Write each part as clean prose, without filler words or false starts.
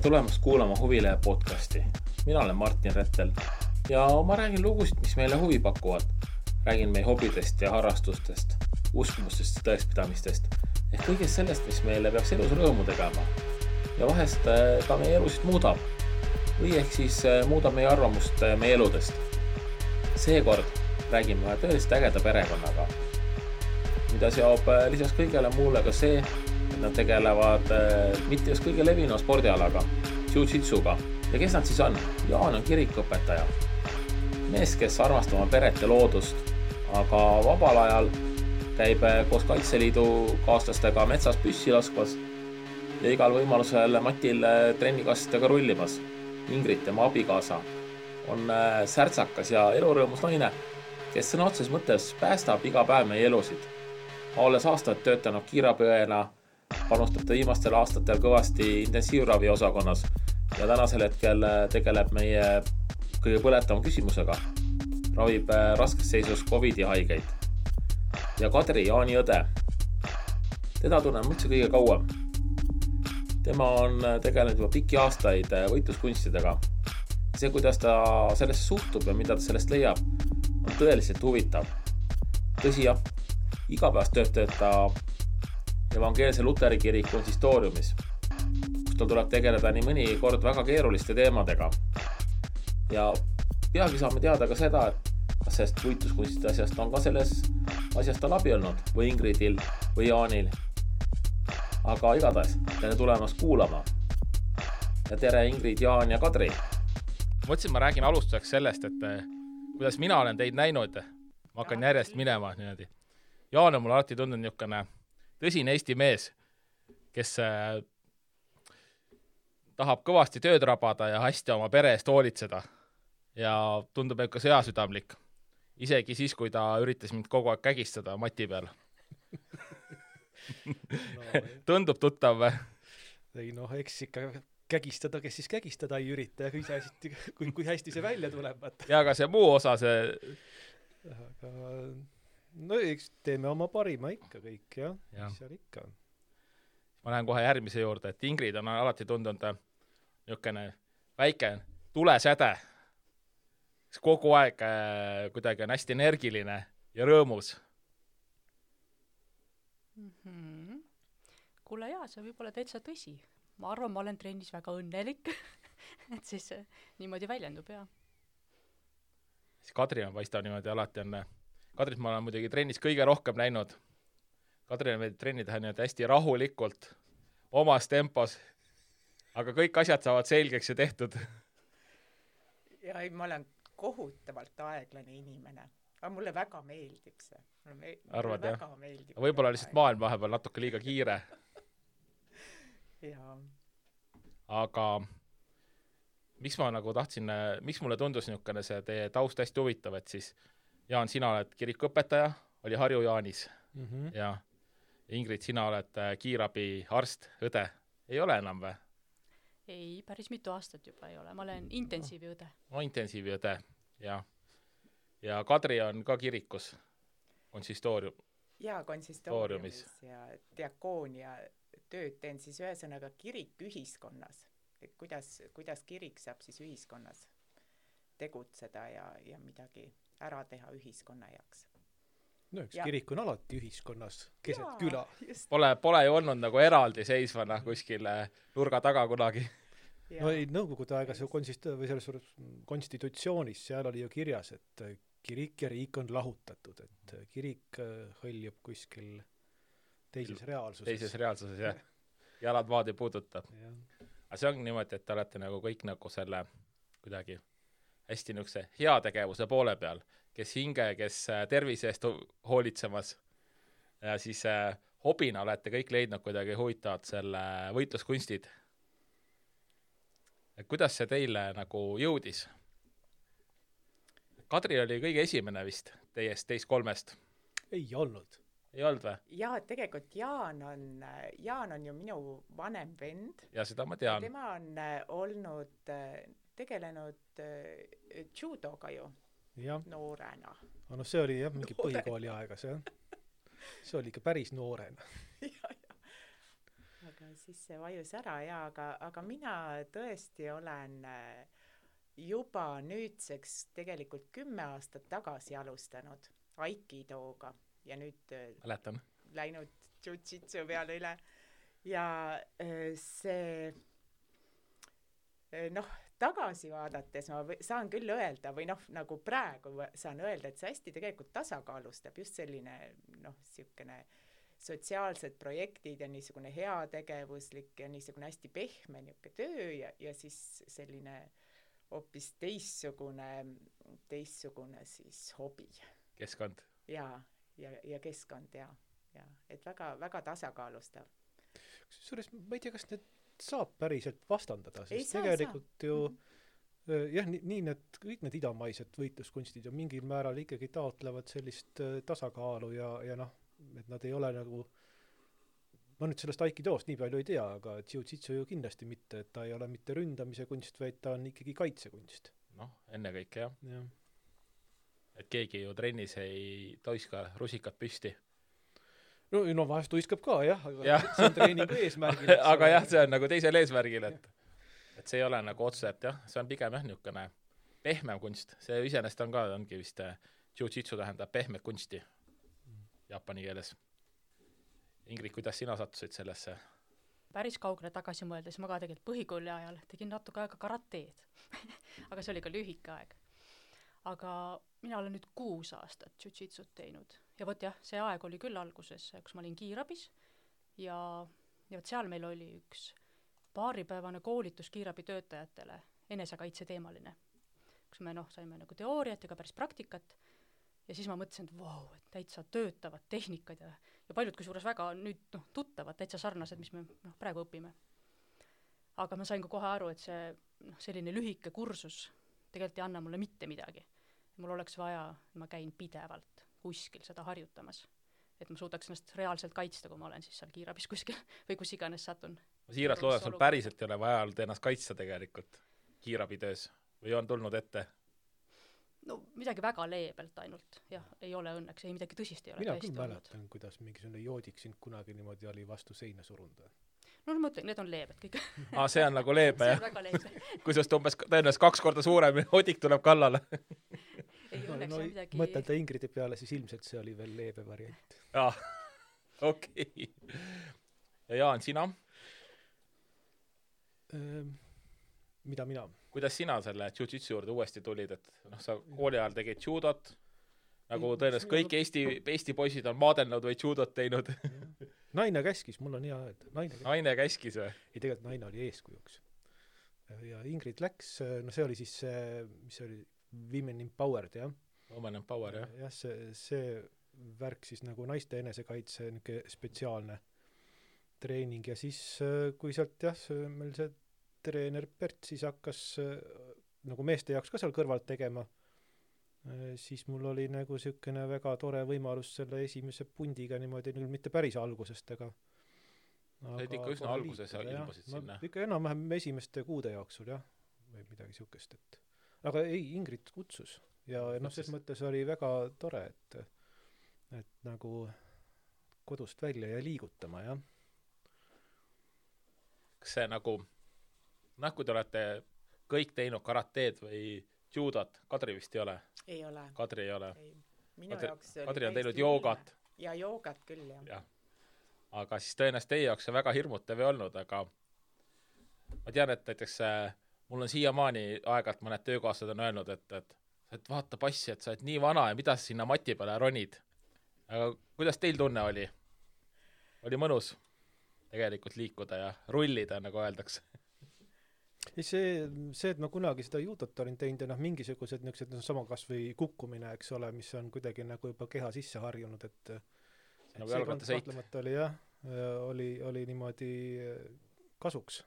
tulemast kuulama Huvilehe podcasti. Mina olen Martin Rettel ja ma räägin lugusid, mis meile huvi pakuvad. Räägin meie hobidest ja harrastustest, uskumustest ja tõekspidamistest ehk kõigest sellest, mis meile peaks elus rõõmu tegema ja vahest ka meie elusid muudab või ehk siis muudab meie arvamust meie eludest. Seekord räägime ühe tõeliselt ägeda perekonnaga, mida seob lisaks kõigele muule ka see, et nad tegelevad mitte just kõige levinua spordialaga, jiu-jitsuga. Ja kes nad siis on? Jaan on kirikuõpetaja. Mees, kes armastab oma peret ja loodust, aga vabal ajal käib koos Kaitseliidu kaaslastega metsas püssi laskvas ja igal võimalusel Matil trennikastidega rullimas. Ingrid, tema abikaasa, on särtsakas ja elurõõmus naine, kes sõna otseses mõttes päästab iga päev meie elusid. Olles aastaid töötanud kiirabiõena, panustab ta viimastel aastatel kõvasti intensiivravi osakonnas ja tänasel hetkel tegeleb meie kõige põletavama küsimusega. Ravib raskes seisus COVID-i haigeid. Ja Kadri, Jaani õde. Teda tunnen üldse kõige kauem. Tema on tegelenud juba pikki aastaid võitluskunstidega. See, kuidas ta sellest suhtub ja mida ta sellest leiab, on tõeliselt huvitav. Tõsi jah, igapäevast tööd ta evangeelse Luteri kirik konsistooriumis, kus tal tuleb tegeleda nii mõni kord väga keeruliste teemadega. Ja peagi saame teada ka seda, et kas sellest võitluskunstide asjast on ka selles asjast tal abi olnud või Ingridil või Jaanil. Aga igatahes, tere tulemast kuulama. Ja tere Ingrid, Jaan ja Kadri. Mõtlesin, ma räägin alustuseks sellest, et kuidas mina olen teid näinud. Ma hakkan järjest minema niimoodi. Jaan on mul alati tundunud niisugune tõsine Eesti mees, kes tahab kõvasti tööd rabada ja hästi oma pere eest hoolitseda. Ja tundub ka sõjasüdamlik. Isegi siis, kui ta üritas mind kogu aeg kägistada Mati peal. Tundub tuttav või? Ei eks ikka kägistada, kes siis kägistada ei ürita ja kui hästi see välja tuleb. Ja aga see muu osa, Aga eks teeme oma parima ikka kõik, jah. Mis seal ikka on? Ma lähen kohe järgmise juurde, et Ingrid on alati tundunud niisugune väike tulesäde. Kogu aeg kuidagi on hästi energiline ja rõõmus. Kuule jaa, see võib olla täitsa tõsi. Ma arvan, ma olen trennis väga õnnelik, et siis niimoodi väljendub, jah. Kadri on paistab niimoodi alati on. Kadrit ma olen muidugi trennis kõige rohkem näinud. Kadri on trenni teha niimoodi hästi rahulikult, omas tempos, aga kõik asjad saavad selgeks ja tehtud. Ja ma olen kohutavalt aeglane inimene, aga mulle väga meeldib see. Arvad, jah? Võib-olla lihtsalt maailm vahepeal natuke liiga kiire. Jaa. Aga miks ma nagu tahtsin, miks mulle tundus niisugune see teie taust hästi huvitav, et siis Jaan, sina oled kirikuõpetaja, oli Harju Jaanis ja Ingrid, sina oled kiirabi arst, õde. Ei ole enam või? Ei, päris mitu aastat juba ei ole. Ma olen intensiiviõde. Intensiiviõde, jah. Ja Kadri on ka kirikus, konsistoorium. Jaa, konsistooriumis ja diakoonia tööd teen siis ühesõnaga kirik ühiskonnas. Et kuidas kirik saab siis ühiskonnas tegutseda ja midagi ära teha ühiskonna jaoks. Üks kirik on alati ühiskonnas, keset küla. Pole ju olnud nagu eraldi seisvana kuskil nurga taga kunagi. No ei, nõukogude aega see konstitutsioonis, seal oli ju kirjas, et kirik ja riik on lahutatud, et kirik hõljub kuskil teises reaalsuses. Teises reaalsuses, jah. Jalad maad ei puuduta. Aga see on niimoodi, et te olete nagu kõik nagu selle kuidagi hästi niisuguse heategevuse poole peal, kes hinge, kes tervise eest hoolitsemas ja siis hobina olete kõik leidnud kuidagi huvitavad selle võitluskunstid. Et kuidas see teile nagu jõudis? Kadri oli kõige esimene vist teist kolmest. Ei olnud. Ei olnud või? Jaa, tegelikult Jaan on ju minu vanem vend. Ja seda ma tean. Tema on tegelenud judoga ju noorena. No see oli jah, mingi põhikooli aegas, jah. See oli ikka päris noorena. aga siis see vajus ära ja aga mina tõesti olen juba nüüdseks tegelikult 10 aastat tagasi alustanud Aikidoga ja nüüd mäletan. Läinud jiu-jitsu peale üle ja see tagasi vaadates ma saan küll öelda või nagu praegu saan öelda, et see hästi tegelikult tasakaalustab just selline siukene sotsiaalsed projektid ja niisugune heategevuslik ja niisugune hästi pehme niisugune töö ja siis selline hoopis teistsugune siis hobi. Keskkond. Ja keskkond ja et väga tasakaalustav. Kusjuures ma ei tea, kas need saab päriselt vastandada, sest tegelikult ju jah, nii kõik need idamaised võitluskunstid ju mingil määral ikkagi taotlevad sellist tasakaalu ja et nad ei ole nagu, ma nüüd sellest Aikidoost nii palju ei tea, aga jiu-jitsu ju kindlasti mitte, et ta ei ole mitte ründamise kunst, vaid ta on ikkagi kaitsekunst. Ennekõike jah. Et keegi ju trennis ei toiska rusikat püsti. No vahest tuiskab ka jah, aga see on treeningu eesmärgil. aga jah, see on nagu teisel eesmärgil, et see ei ole nagu otse, et jah, see on pigem jah niisugune pehmem kunst. See iseenesest ongi vist jiu-jitsu tähendab pehmet kunsti jaapani keeles. Ingrid, kuidas sina sattusid sellesse? Päris kaugele tagasi mõeldes ma ka tegelikult põhikooli ajal tegin natuke aega karateed. aga see oli ka lühike aeg. Aga mina olen nüüd 6 aastat jiu-jitsut teinud. Ja võt jah, see aeg oli küll alguses, kus ma olin kiirabis ja võt seal meil oli üks paaripäevane koolitus kiirabitöötajatele, enesekaitse teemaline. Kus me saime nagu teooriat ja ka päris praktikat. Ja siis ma mõtlesin, et vau, et täitsa töötavad tehnikad ja paljud kusjuures väga nüüd tuttavad, täitsa sarnased, mis me praegu õpime. Aga ma sain ka kohe aru, et see selline lühike kursus tegelikult ei anna mulle mitte midagi. Mul oleks vaja, ma käin pidevalt kuskil seda harjutamas. Et ma suudaks ennast reaalselt kaitsta, kui ma olen siis seal kiirabis kuskil või kus iganes satun. Ma siiralt loodan, sul päriselt ei ole vaja ennast kaitsta tegelikult kiirabitöös või on tulnud ette? Midagi väga leebelt ainult. Jah, ei ole õnneks, ei midagi tõsist ei ole. Mina küll mäletan, kuidas mingisugune joodik sind kunagi niimoodi oli vastu seina surunda. Ma mõtlen, need on leebed kõik. See on nagu leebe, jah? See on väga leebe. Kui sest umbes tõenäoliselt 2 korda suurem joodik tuleb kallale. Ei õnneks on midagi... Mõtelda Ingridi peale, siis ilmselt see oli veel leebe variant. Okei. Ja Jaan, sina? Mida mina? Kuidas sina selle jiu-jitsu juurde uuesti tulid, et sa kooli ajal tegid judot, nagu tõenäoliselt kõik Eesti poisid on maadelnud või judot teinud. Naine käskis, mul on hea öelda. Naine käskis või? Ei, tegelikult naine oli eeskujuks. Ja Ingrid läks, see oli siis mis oli Women Empowered, jah? Women Empower, jah? Jah, see värk siis nagu naiste enesekaitse spetsiaalne treening ja siis kui sealt meil see treener Bert siis hakkas nagu meeste jaoks ka seal kõrvalt tegema, siis mul oli nagu siukene väga tore võimalus selle esimese pundiga niimoodi, mitte päris algusest, aga sa olid ikka üsna alguses ilmusid sinna. Ikka enam-vähem esimeste kuude jooksul, jah, või midagi siukest, et aga ei, Ingrid kutsus ja selles mõttes oli väga tore, et nagu kodust välja ja liigutama, jah. Kas see nagu kui te olete kõik teinud karateed või judot, Kadri vist ei ole? Ei ole. Kadri ei ole. Minu jaoks Kadri on teinud joogat. Ja joogat küll, jah. Aga siis tõenäoliselt teie jaoks see väga hirmutav ei olnud, aga ma tean, et näiteks mul on siiamaani aegalt mõned töökaaslased on öelnud, et vaata passi, et sa oled nii vana ja mida sa sinna mati peale ronid. Aga kuidas teil tunne oli? Oli mõnus tegelikult liikuda ja rullida, nagu öeldakse? See, et ma kunagi seda judot olin teinud ja mingisugused niisugused sama kas või kukkumine, eks ole, mis on kuidagi nagu juba keha sisse harjunud, et nagu jalgrattasõit. Oli jah, oli niimoodi kasuks.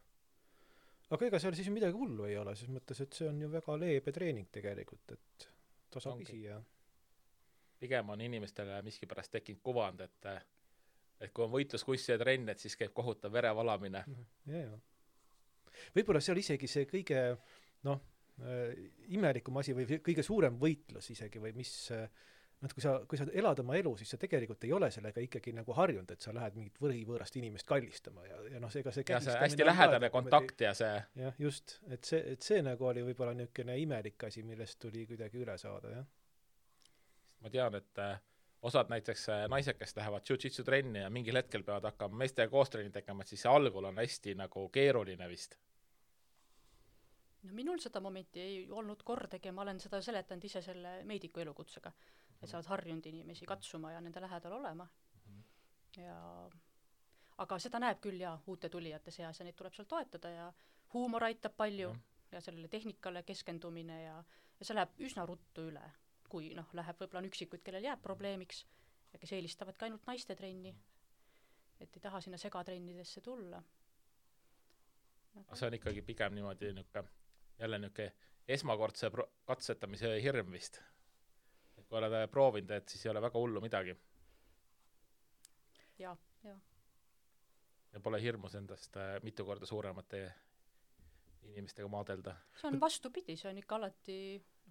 Aga ega seal siis midagi hullu ei ole, siis mõttes, et see on ju väga leebe treening tegelikult, et tasapisi ja pigem on inimestele miskipärast tekkinud kuvand, et kui on võitluskussi ja trenn, et siis käib kohutav verevalamine. Ja. Võib-olla seal isegi see kõige imelikum asi või kõige suurem võitlus isegi või mis kui sa elad oma elu, siis sa tegelikult ei ole sellega ikkagi nagu harjunud, et sa lähed mingit võõrast inimest kallistama ja ega see ja see hästi lähedane kontakt ja see jah, just, et see nagu oli võib-olla niisugune imelik asi, millest tuli kuidagi üle saada, jah. Ma tean, et osad näiteks naised, kes lähevad jiu-jitsu trenni ja mingil hetkel peavad hakkama meestega koostrenni tegema, et siis see algul on hästi nagu keeruline vist. No minul seda momenti ei olnud kordagi, ma olen seda seletanud ise selle meediku elukutsega, et sa oled harjunud inimesi katsuma ja nende lähedal olema. Ja aga seda näeb küll ja uute tulijate seas ja neid tuleb seal toetada ja huumor aitab palju ja sellele tehnikale keskendumine ja see läheb üsna ruttu üle, kui läheb võib-olla on üksikuid, kellel jääb probleemiks ja kes eelistavad ka ainult naiste trenni, et ei taha sinna segatrennidesse tulla. See on ikkagi pigem niimoodi jälle esmakordse katsetamise hirm vist. Et kui oled proovinud, et siis ei ole väga hullu midagi. Ja. Ja pole hirmus endast mitu korda suuremate inimestega maadelda. See on vastupidi, see on ikka alati,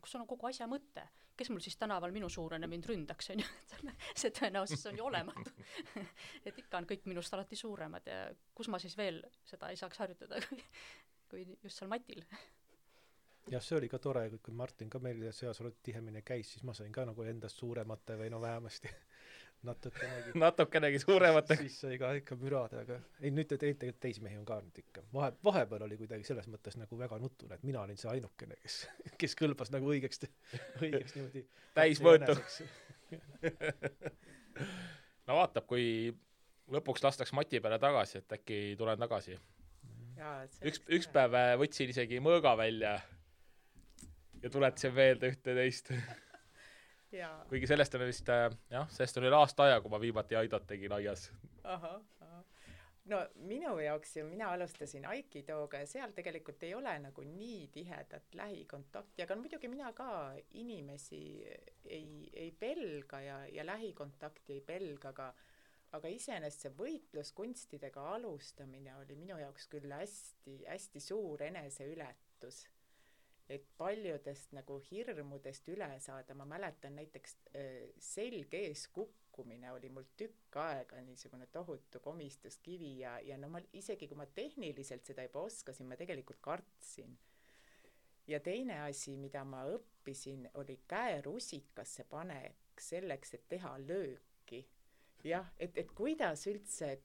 kus on kogu asja mõte. Kes mul siis tänaval minu suurene mind ründaks, on ju? See tõenäosus on ju olematu. Et ikka on kõik minust alati suuremad ja kus ma siis veel seda ei saaks harjutada, kui just seal matil. Jah, see oli ka tore, kui Martin ka meil seas tihemini käis, siis ma sain ka nagu endast suuremate või vähemasti natukenegi suuremate. Siis sai ka ikka mürada, aga ei, nüüd tegelikult teisi mehi on ka nüüd ikka. Vahepeal oli kuidagi selles mõttes nagu väga nutune, et mina olin see ainukene, kes kõlbas nagu õigeks niimoodi. Täismõõtu. No vaatab, kui lõpuks lastaks Mati peale tagasi, et äkki tulen tagasi. Üks päev võtsin isegi mõõga välja ja tuletasin meelde ühte teist. Kuigi sellest on vist, sellest oli aasta aja, kui ma viimati Aidot tegin aias. Aha. No minu jaoks ju mina alustasin Aikidooga ja seal tegelikult ei ole nagu nii tihedat lähikontakti, aga muidugi mina ka inimesi ei pelga ja lähikontakti ei pelga, aga iseenesest see võitluskunstidega alustamine oli minu jaoks küll hästi suur eneseületus. Et paljudest nagu hirmudest üle saada, ma mäletan näiteks selg ees kukkumine oli mul tükk aega niisugune tohutu komistuskivi ja no isegi kui ma tehniliselt seda juba oskasin, ma tegelikult kartsin. Ja teine asi, mida ma õppisin, oli käerusikasse panek selleks, et teha lööki. Jah, et kuidas üldse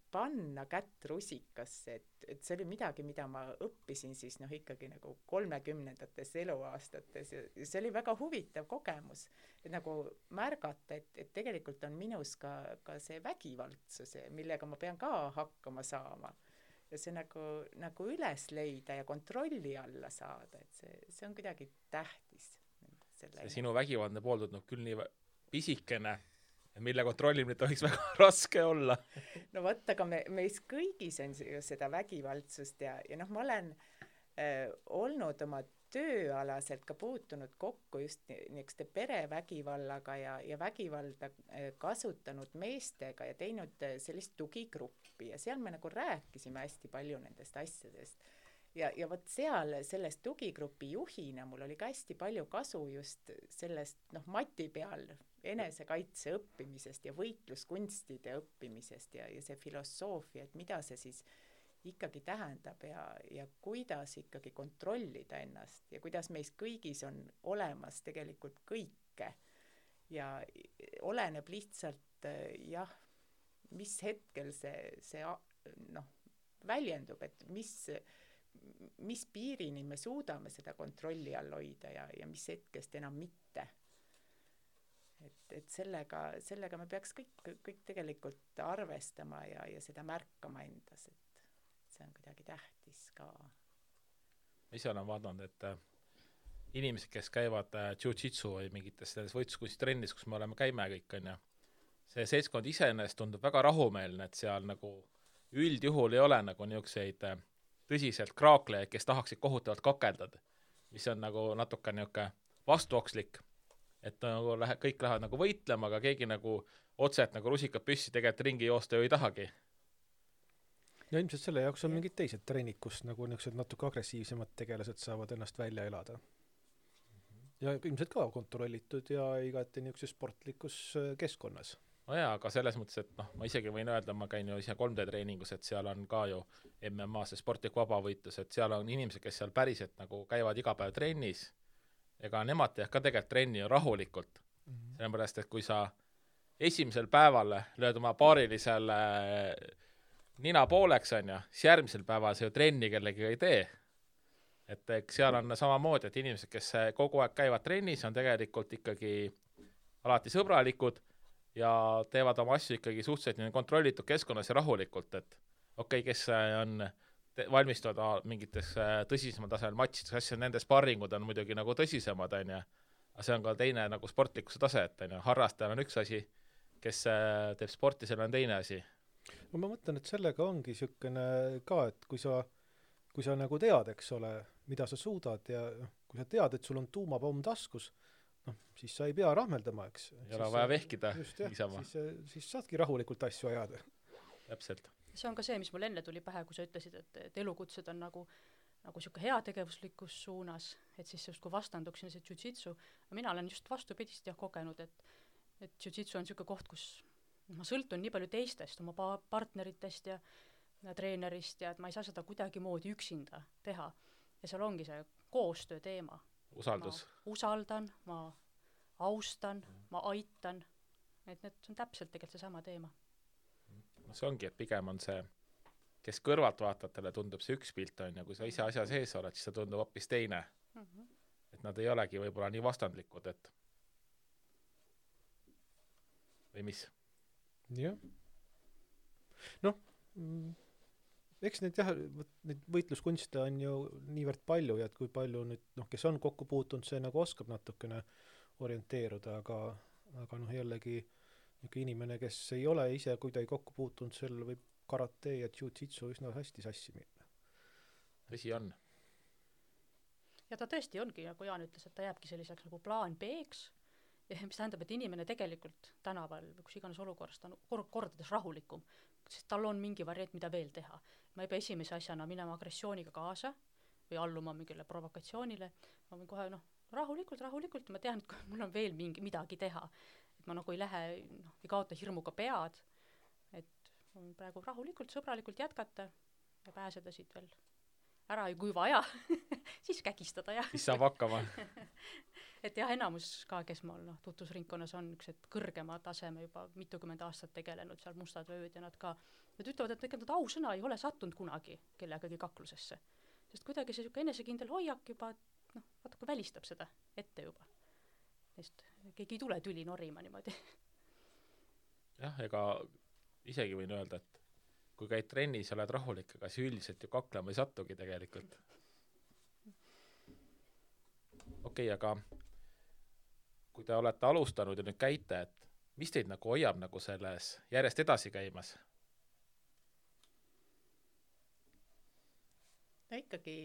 panna kätt rusikasse, et see oli midagi, mida ma õppisin siis ikkagi nagu 30-ndates eluaastates ja see oli väga huvitav kogemus, et nagu märgata, et tegelikult on minus ka see vägivaldsus, millega ma pean ka hakkama saama ja see nagu üles leida ja kontrolli alla saada, et see on kuidagi tähtis. See sinu vägivaldne pool tundub küll nii pisikene, mille kontrollimine tohiks väga raske olla. No võtta, aga meis kõigis on seda vägivaldsust ja ma olen olnud oma tööalaselt ka puutunud kokku just niisuguste perevägivallaga ja vägivalda kasutanud meestega ja teinud sellist tugigruppi ja seal me nagu rääkisime hästi palju nendest asjadest. Ja võt seal sellest tugigrupi juhina mul oli ka hästi palju kasu just sellest Mati peal enesekaitse õppimisest ja võitluskunstide õppimisest ja see filosoofia, et mida see siis ikkagi tähendab ja kuidas ikkagi kontrollida ennast ja kuidas meis kõigis on olemas tegelikult kõike ja oleneb lihtsalt mis hetkel see väljendub, et mis piirini me suudame seda kontrolli all hoida ja mis hetkest enam mitte. Et sellega me peaks kõik tegelikult arvestama ja seda märkama endas, et see on kuidagi tähtis ka. Ma ise olen vaadanud, et inimesed, kes käivad jiu-jitsu või mingites võitluskunstitrennis, kus me käime kõik, on ja see seltskond iseenesest tundub väga rahumeelne, et seal nagu üldjuhul ei ole nagu niisuguseid tõsiselt kraaklejaid, kes tahaksid kohutavalt kakeldada, mis on nagu natuke niisugune vastuokslik, et nagu kõik lähevad nagu võitlema, aga keegi nagu otseselt nagu rusikad püssi tegelikult ringi joosta ju ei tahagi. Ja ilmselt selle jaoks on mingid teised trennid, kus nagu niisugused natuke agressiivsemad tegelased saavad ennast välja elada. ja ilmselt ka kontrollitud ja igati niisuguses sportlikus keskkonnas. no jaa, aga selles mõttes, et noh, ma isegi võin öelda, ma käin ju ise 3D treeningus, et seal on ka ju MMA, see sportlik vabavõitlus, et seal on inimesed, kes seal päriselt nagu käivad iga päev trennis, ega nemad teevad ka tegelikult trenni ju rahulikult. Sellepärast, et kui sa esimesel päeval lööd oma paarilisele nina pooleks, on ju, siis järgmisel päeval see ju trenni kellegagi ei tee. Et eks seal on samamoodi, et inimesed, kes kogu aeg käivad trennis, on tegelikult ikkagi alati sõbralikud ja teevad oma asju ikkagi suhteliselt kontrollitud keskkonnas ja rahulikult, et okei, kes on valmistuvad mingites tõsisemal tasemel matšides, asja, nende sparringud on muidugi nagu tõsisemad, on ju, aga see on ka teine nagu sportlikkuse tase, et on ju, harrastajal on üks asi, kes teeb sporti, seal on teine asi. No ma mõtlen, et sellega ongi niisugune ka, et kui sa nagu tead, eks ole, mida sa suudad ja kui sa tead, et sul on tuumapomm taskus, siis sa ei pea rahmeldama, eks. Ei ole vaja vehkida niisama. Siis saadki rahulikult asju ajada. Täpselt. See on ka see, mis mul enne tuli pähe, kui sa ütlesid, et elukutsed on nagu siuke heategevuslikus suunas, et siis just kui vastanduks see jiu-jitsu, mina olen just vastupidist kogenud, et jiu-jitsu on siuke koht, kus ma sõltun nii palju teistest, oma partneritest ja treenerist ja et ma ei saa seda kuidagi moodi üksinda teha. Ja seal ongi see koostöö teema. Usaldus. Ma usaldan, ma austan, ma aitan, et need on täpselt tegelikult see sama teema. No see ongi, et pigem on see, kes kõrvalt vaatajatele tundub see üks pilt on ja kui sa ise asja sees oled, siis see tundub hoopis teine. Et nad ei olegi võib-olla nii vastandlikud, et või mis? Jah. Eks neid võitluskunste on ju niivõrd palju ja et kui palju nüüd, kes on kokku puutunud, see nagu oskab natukene orienteeruda, aga jällegi inimene, kes ei ole ise kuidagi kokku puutunud, seal võib karate ja jiu-jitsu üsna hästi sassi minna. Tõsi on. Ja ta tõesti ongi, nagu Jaan ütles, et ta jääbki selliseks nagu plaan B-ks, mis tähendab, et inimene tegelikult tänaval või kus iganes olukorras ta on kordades rahulikum, sest tal on mingi variant, mida veel teha. Ma ei pea esimese asjana minema agressiooniga kaasa või alluma mingile provokatsioonile. Ma võin kohe rahulikult, ma tean, et mul on veel midagi teha. Et ma nagu ei lähe, ei kaota hirmuga pead, et praegu rahulikult, sõbralikult jätkata ja pääseda siit veel ära ja kui vaja, siis kägistada. Siis saab hakkama. Et jah, enamus ka, kes mul tutvusringkonnas on üks kõrgema taseme juba mitukümmend aastat tegelenud, seal mustad ööd ja nad ütlevad, et nad ausõna ei ole sattunud kunagi kellegagi kaklusesse. Sest kuidagi see enesekindel hoiak juba natuke välistab seda ette juba. Sest keegi ei tule tüli norima niimoodi. Jah, ega isegi võin öelda, et kui käid trennis ja oled rahulik, aga siis üldiselt ju kaklema ei sattugi tegelikult. Okei, aga kui te olete alustanud ja nüüd käite, et mis teid nagu hoiab nagu selles järjest edasi käimas? No ikkagi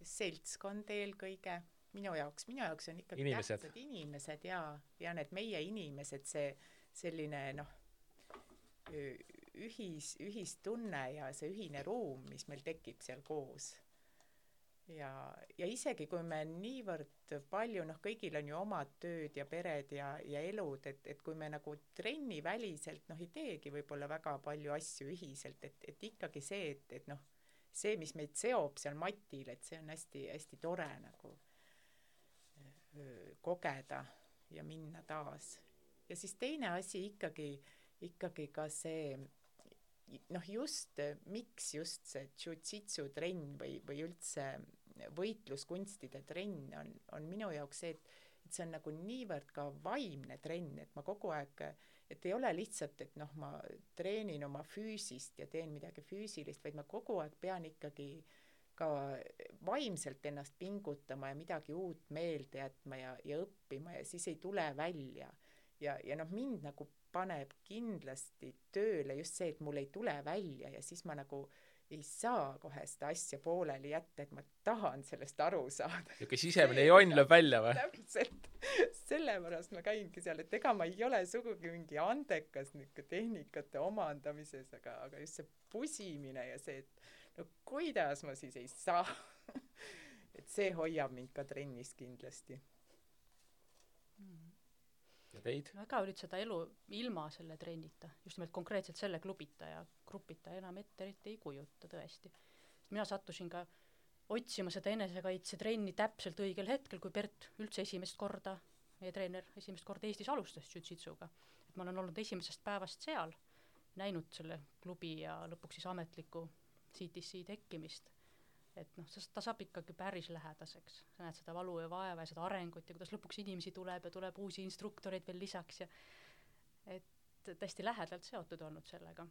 seltskond eelkõige. Minu jaoks on ikkagi tähtsad inimesed ja need meie inimesed, see selline ühistunne ja see ühine ruum, mis meil tekib seal koos. Ja isegi kui me niivõrd palju, kõigil on ju omad tööd ja pered ja elud, et kui me nagu trenni väliselt ei teegi võib-olla väga palju asju ühiselt, et ikkagi see, et see, mis meid seob seal matil, et see on hästi, hästi tore nagu kogeda ja minna taas. Ja siis teine asi ikkagi ka see miks just see jiu-jitsu trenn või üldse võitluskunstide trenn on minu jaoks see, et see on nagu niivõrd ka vaimne trenn, et ma kogu aeg, et ei ole lihtsalt, et ma treenin oma füüsist ja teen midagi füüsilist, vaid ma kogu aeg pean ikkagi ka vaimselt ennast pingutama ja midagi uut meelde jätma ja õppima ja siis ei tule välja. Ja mind nagu paneb kindlasti tööle just see, et mul ei tule välja ja siis ma nagu ei saa kohe seda asja pooleli jätta, et ma tahan sellest aru saada. Ja kes sisemine jonn lööb välja või? Täpselt. Sellepärast ma käingi seal, et ega ma ei ole sugugi mingi andekas tehnikate omandamises, aga just see pusimine ja see, et kuidas ma siis ei saa. et see hoiab mind ka trennis kindlasti. Ja teid? No ega olid seda elu ilma selle trennita, just nimelt konkreetselt selle klubita ja grupita enam ette ei kujuta tõesti. Mina sattusin ka otsima seda enesekaitsetrenni täpselt õigel hetkel, kui Bert üldse esimest korda, meie treener esimest korda Eestis alustas jiu-jitsuga. Et ma olen olnud esimesest päevast seal, näinud selle klubi ja lõpuks siis ametliku CTC tekkimist. Et noh, ta saab ikkagi päris lähedaseks. Sa näed seda valu ja vaeva ja seda arengut ja kuidas lõpuks inimesi tuleb ja tuleb uusi instruktoreid veel lisaks ja et tõesti lähedalt seotud olnud sellega.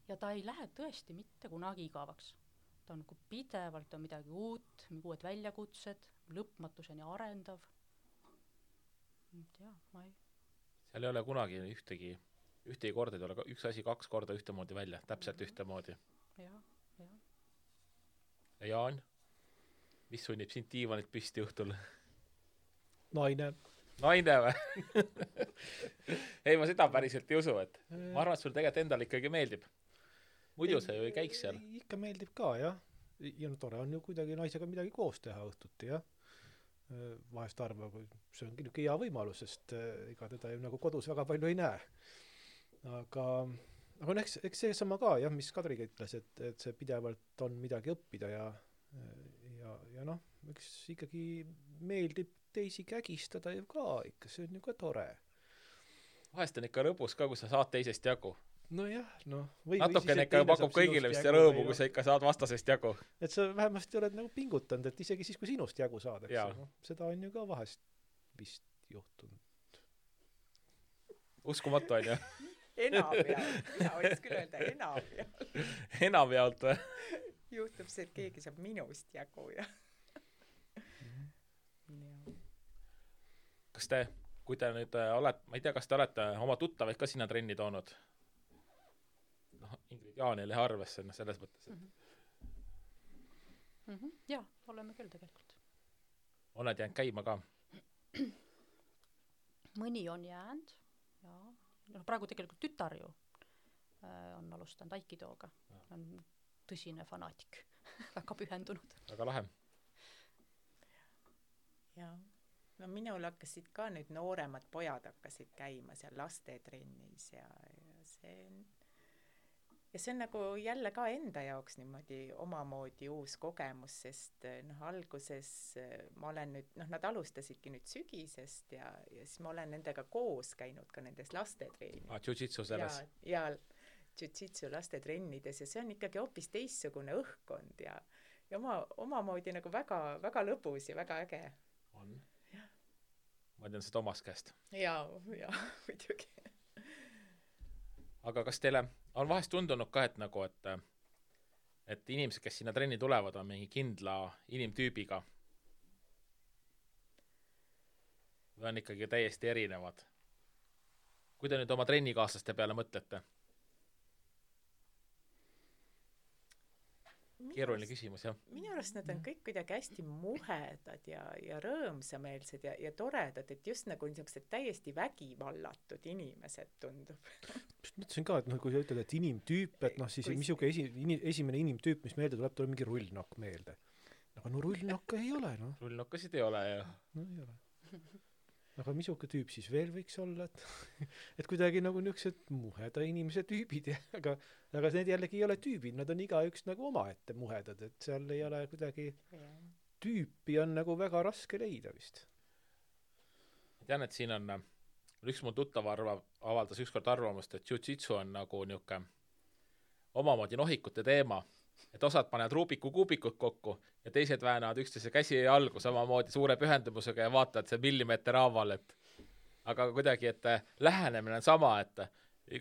Ja ta ei lähe tõesti mitte kunagi igavaks. Ta on nagu pidevalt on midagi uut, uued väljakutsed, lõpmatuseni arendav. Ja, ma ei... Seal ei ole kunagi ühtegi korda, ei ole üks asi 2 korda ühtemoodi välja, täpselt ühtemoodi. Ja. Ja Jaan, mis sunnib sind diivanit püsti õhtul? Naine või? Ei, ma seda päriselt ei usu, et ma arvan, et sul tegelikult endal ikkagi meeldib. Muidu see ju ei käiks seal. Ikka meeldib ka, jah. Ja no tore on ju kuidagi naisega midagi koos teha õhtuti, jah. Vahest arvab, see on niisugune hea võimalus, sest ega teda ju nagu kodus väga palju ei näe. Aga eks see sama ka, jah, mis Kadriga ütles, et see pidevalt on midagi õppida ja noh, eks ikkagi meeldib teisi kägistada ju ka ikka, see on ju ka tore. Vahest on ikka lõbus ka, kui sa saad teisest jagu. Nojah, noh. Natukene ikka pakub kõigile vist rõõmu, kui sa ikka saad vastasest jagu. Et sa vähemasti oled nagu pingutanud, et isegi siis, kui sinust jagu saadakse. No, seda on ju ka vahest vist juhtunud. Uskumatu on ju? Enamjaalt. Mina võiks küll öelda enamjaalt. Enamjaalt või? Juhtub see, et keegi saab minust jagu ja... Kas te, kui te nüüd olete, ma ei tea, kas te olete oma tuttavaid ka sinna trenni toonud? Noh, Ingrid Jaanile arvesse selles mõttes. Jaa, oleme küll tegelikult. Oled jäänud käima ka? Mõni on jäänud, jaa. No, praegu tegelikult tütar ju on alustanud Aikidooga. On tõsine fanaatik, väga pühendunud. Väga lahe. Jaa. No minul hakkasid ka nüüd nooremad pojad hakkasid käima seal lastetrennis ja see on nagu jälle ka enda jaoks niimoodi omamoodi uus kogemus, sest noh, alguses ma olen nüüd, noh, nad alustasidki nüüd sügisest ja siis ma olen nendega koos käinud ka nendes lastetrennides. Jiu-jitsu selles? Ja jiu-jitsu lastetrennides ja see on ikkagi hoopis teissugune õhkkond ja omamoodi nagu väga, väga lõbus ja väga äge. On? Ma tean seda omast käest. Jaa, muidugi. Aga kas teile on vahest tundunud ka, et nagu, et inimesed, kes sinna trenni tulevad, on mingi kindla inimtüübiga? Või on ikkagi täiesti erinevad? Kui te nüüd oma trennikaaslaste peale mõtlete? Keeruline küsimus, jah. Minu arust nad on kõik kuidagi hästi muhedad ja rõõmsameelsed ja toredad, et just nagu niisugused täiesti vägivallatud inimesed tundub. Mõtlesin ka, et kui sa ütled, et inimtüüp, et noh, siis misuke esimene inimtüüp, mis meelde tuleb mingi rullnokk meelde. Aga no rullnokka ei ole, noh. Rullnokkasid ei ole, jah. No ei ole. Aga misuke tüüp siis veel võiks olla, et kuidagi nagu niisugused muheda inimese tüübid, aga need jällegi ei ole tüübid, nad on igaüks nagu omaette muhedad, et seal ei ole kuidagi tüüpi on nagu väga raske leida vist. Ma tean, et siin on üks mul tuttav avaldas ükskord arvamust, et jiu-jitsu on nagu niuke omamoodi nohikute teema, et osad panevad Rubiku kuubikud kokku ja teised väänavad üksteise käsi ja jalgu samamoodi suure pühendumusega ja vaatavad see millimeeter haaval, aga kuidagi, et lähenemine on sama, et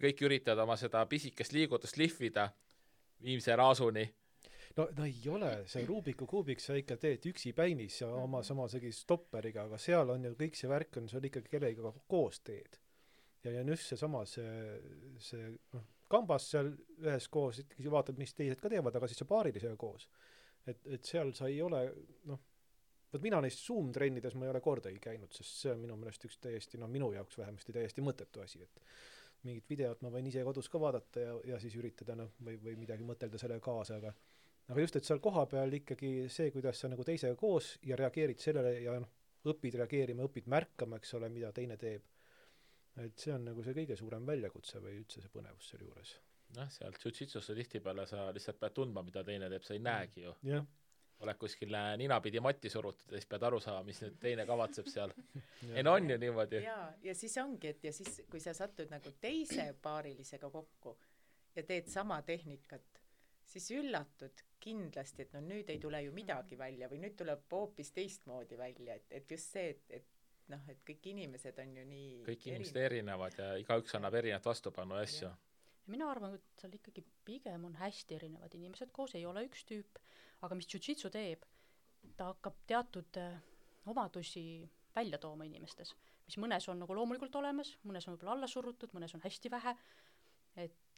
kõik üritavad oma seda pisikest liigutust lihvida viimse raasuni. No ei ole, see Rubiku kuubik sa ikka teed üksi päinis ja oma samasegi stopperiga, aga seal on ju kõik see värk on, see on ikkagi kellega koos teed. Ja just see sama, see kambas seal ühes koos, ikkagi vaatad, mis teised ka teevad, aga siis see paarilisega koos. Et seal sa ei ole, noh, võt mina neist Zoom-trennides ma ei ole kordagi käinud, sest see on minu meelest üks täiesti, minu jaoks vähemasti täiesti mõttetu asi, et mingit videot ma võin ise kodus ka vaadata ja siis üritada, või midagi mõtelda selle kaasa, aga just, et seal kohapeal ikkagi see, kuidas sa nagu teisega koos ja reageerid sellele ja õpid reageerima, õpid märkama, eks ole, mida teine teeb. Et see on nagu see kõige suurem väljakutse või üldse see põnevus selle juures. Seal jiu-jitsusse tihtipeale sa lihtsalt pead tundma, mida teine teeb, sa ei näegi ju. Oled kuskil ninapidi matti surutud ja siis pead aru saama, mis nüüd teine kavatseb seal. On ju niimoodi. Ja siis ongi, et ja siis, kui sa satud nagu teise paarilisega kokku ja teed sama tehnikat, siis üllatud kindlasti, et nüüd ei tule ju midagi välja või nüüd tuleb hoopis teistmoodi välja, et just see, et kõik inimesed on ju nii kõik inimesed erinevad ja igaüks annab erinevat vastupanu asju. Mina arvan, et seal ikkagi pigem on hästi erinevad inimesed koos, ei ole üks tüüp, aga mis jiu-jitsu teeb, ta hakkab teatud omadusi välja tooma inimestes, mis mõnes on nagu loomulikult olemas, mõnes on võib-olla alla surutud, mõnes on hästi vähe,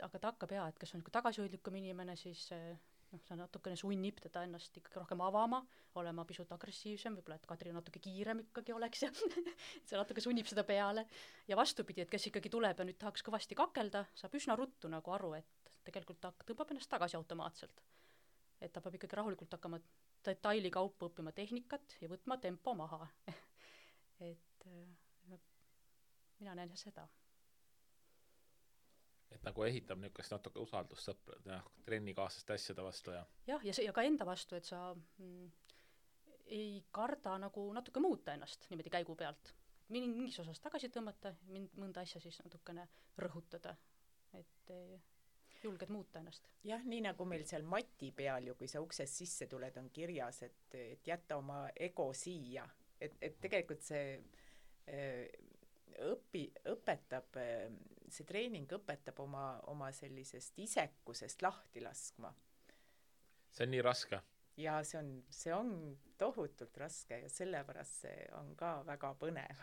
aga ta hakkab et kes on tagasihoidlikum inimene, siis see natukene sunnib teda ennast ikkagi rohkem avama, olema pisut agressiivsem, võib-olla et Kadri natuke kiirem ikkagi oleks ja see natuke sunnib seda peale. Ja vastupidi, et kes ikkagi tuleb ja nüüd tahaks kõvasti kakelda, saab üsna ruttu nagu aru, et tegelikult ta tõmbab ennast tagasi automaatselt. Et ta peab ikkagi rahulikult hakkama detaili kaupa õppima tehnikat ja võtma tempo maha. Et mina näen seda. Et nagu ehitab niisugust natuke usaldust sõpra, trennikaaslaste asjade vastu ja ja ka enda vastu, et sa ei karda nagu natuke muuta ennast niimoodi käigu pealt. Mingis osas tagasi tõmmata, mõnda asja siis natukene rõhutada, et julged muuta ennast. Jah, nii nagu meil seal mati peal ju, kui sa uksest sisse tuled, on kirjas, et jätta oma ego siia. Et tegelikult see õpetab, see treening õpetab oma sellisest isekusest lahti laskma. See on nii raske. Ja see on tohutult raske ja sellepärast see on ka väga põnev.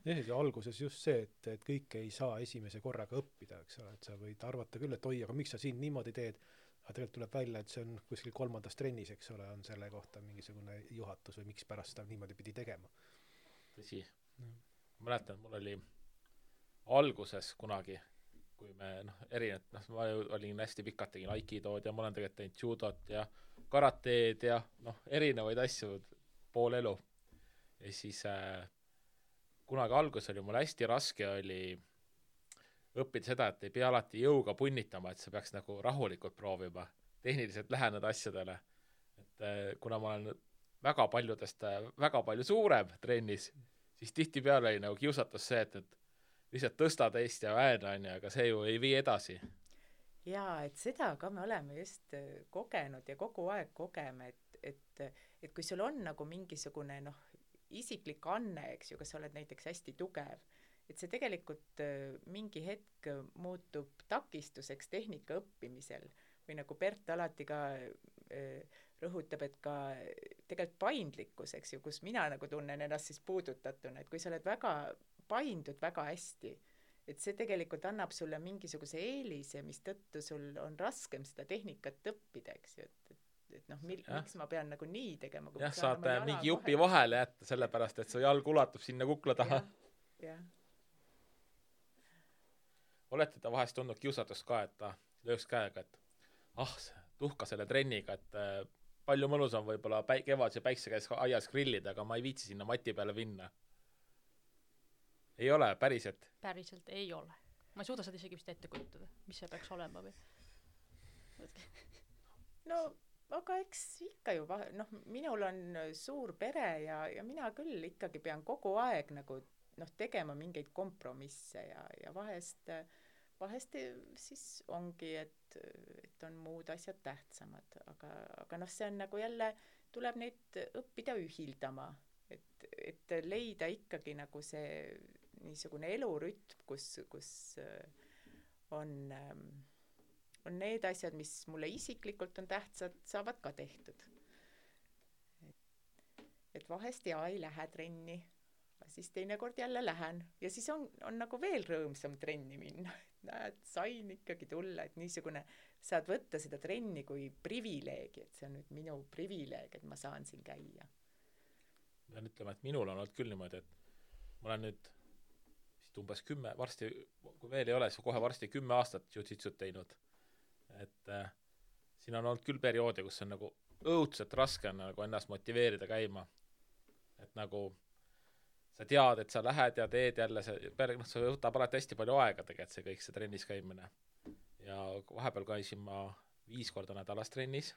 Ja alguses just see, et kõike ei saa esimese korraga õppida, eks ole, et sa võid arvata küll, et oi, aga miks sa siin niimoodi teed, aga tegelikult tuleb välja, et see on kuskil 3. trennis, eks ole, on selle kohta mingisugune juhatus või miks pärast seda niimoodi pidi tegema. Tõsi. Mäletan, mul oli alguses kunagi, kui me ma olin hästi pikalt, tegin aikidood ja ma olen tegelikult teinud judot ja karateed ja erinevaid asju pool elu. Ja siis kunagi alguses oli mul hästi raske oli õppida seda, et ei pea alati jõuga punnitama, et sa peaks nagu rahulikult proovima tehniliselt läheneda asjadele. Et kuna ma olen väga palju suurem trennis, siis tihtipeale oli nagu kiusatus see, et lihtsalt tõsta teist ja väena on ja, aga see ju ei vii edasi. Jaa, et seda ka me oleme just kogenud ja kogu aeg kogeme, et kui sul on nagu mingisugune isiklik anne, eks ju, kas sa oled näiteks hästi tugev, et see tegelikult mingi hetk muutub takistuseks tehnika õppimisel või nagu Bert alati ka rõhutab, et ka tegelikult paindlikkus, eks ju, kus mina nagu tunnen ennast siis puudutatuna, et kui sa oled paindud väga hästi, et see tegelikult annab sulle mingisuguse eelise, mis tõttu sul on raskem seda tehnikat õppida, eks ju, et miks ma pean nagu nii tegema. Jah, saad mingi jupi vahele jätta, sellepärast, et su jalg ulatub sinna kukla taha. Jah. Olete ta vahest tundnud kiusatust ka, et ta lööks käega, et tuhka selle trenniga, et palju mõnus on võib-olla kevadse päikse käes aias grillida, aga ma ei viitsi sinna mati peale minna. Ei ole, päriselt? Päriselt ei ole. Ma ei suuda seda isegi vist ette kujutada, mis see peaks olema või? Aga eks ikka ju, minul on suur pere ja mina küll ikkagi pean kogu aeg nagu tegema mingeid kompromisse ja vahest siis ongi, et on muud asjad tähtsamad, aga see on nagu jälle, tuleb neid õppida ühildama, et leida ikkagi nagu see niisugune elurütm, kus on need asjad, mis mulle isiklikult on tähtsad, saavad ka tehtud. Et vahest ei lähe trenni, siis teinekord jälle lähen ja siis on nagu veel rõõmsam trenni minna. Näed, sain ikkagi tulla, et niisugune, saad võtta seda trenni kui privileegi, et see on nüüd minu privileeg, et ma saan siin käia. Pean ütlema, et minul on olnud küll niimoodi, et ma olen nüüd umbes 10, varsti, kui veel ei ole, siis kohe varsti 10 aastat jiu-jitsut teinud. Et siin on olnud küll perioode, kus on nagu õudselt raske on nagu ennast motiveerida käima. Et nagu sa tead, et sa lähed ja teed jälle see võtab alati hästi palju aega tegelikult see kõik, see trennis käimine. Ja vahepeal käisin ma 5 korda nädalas trennis.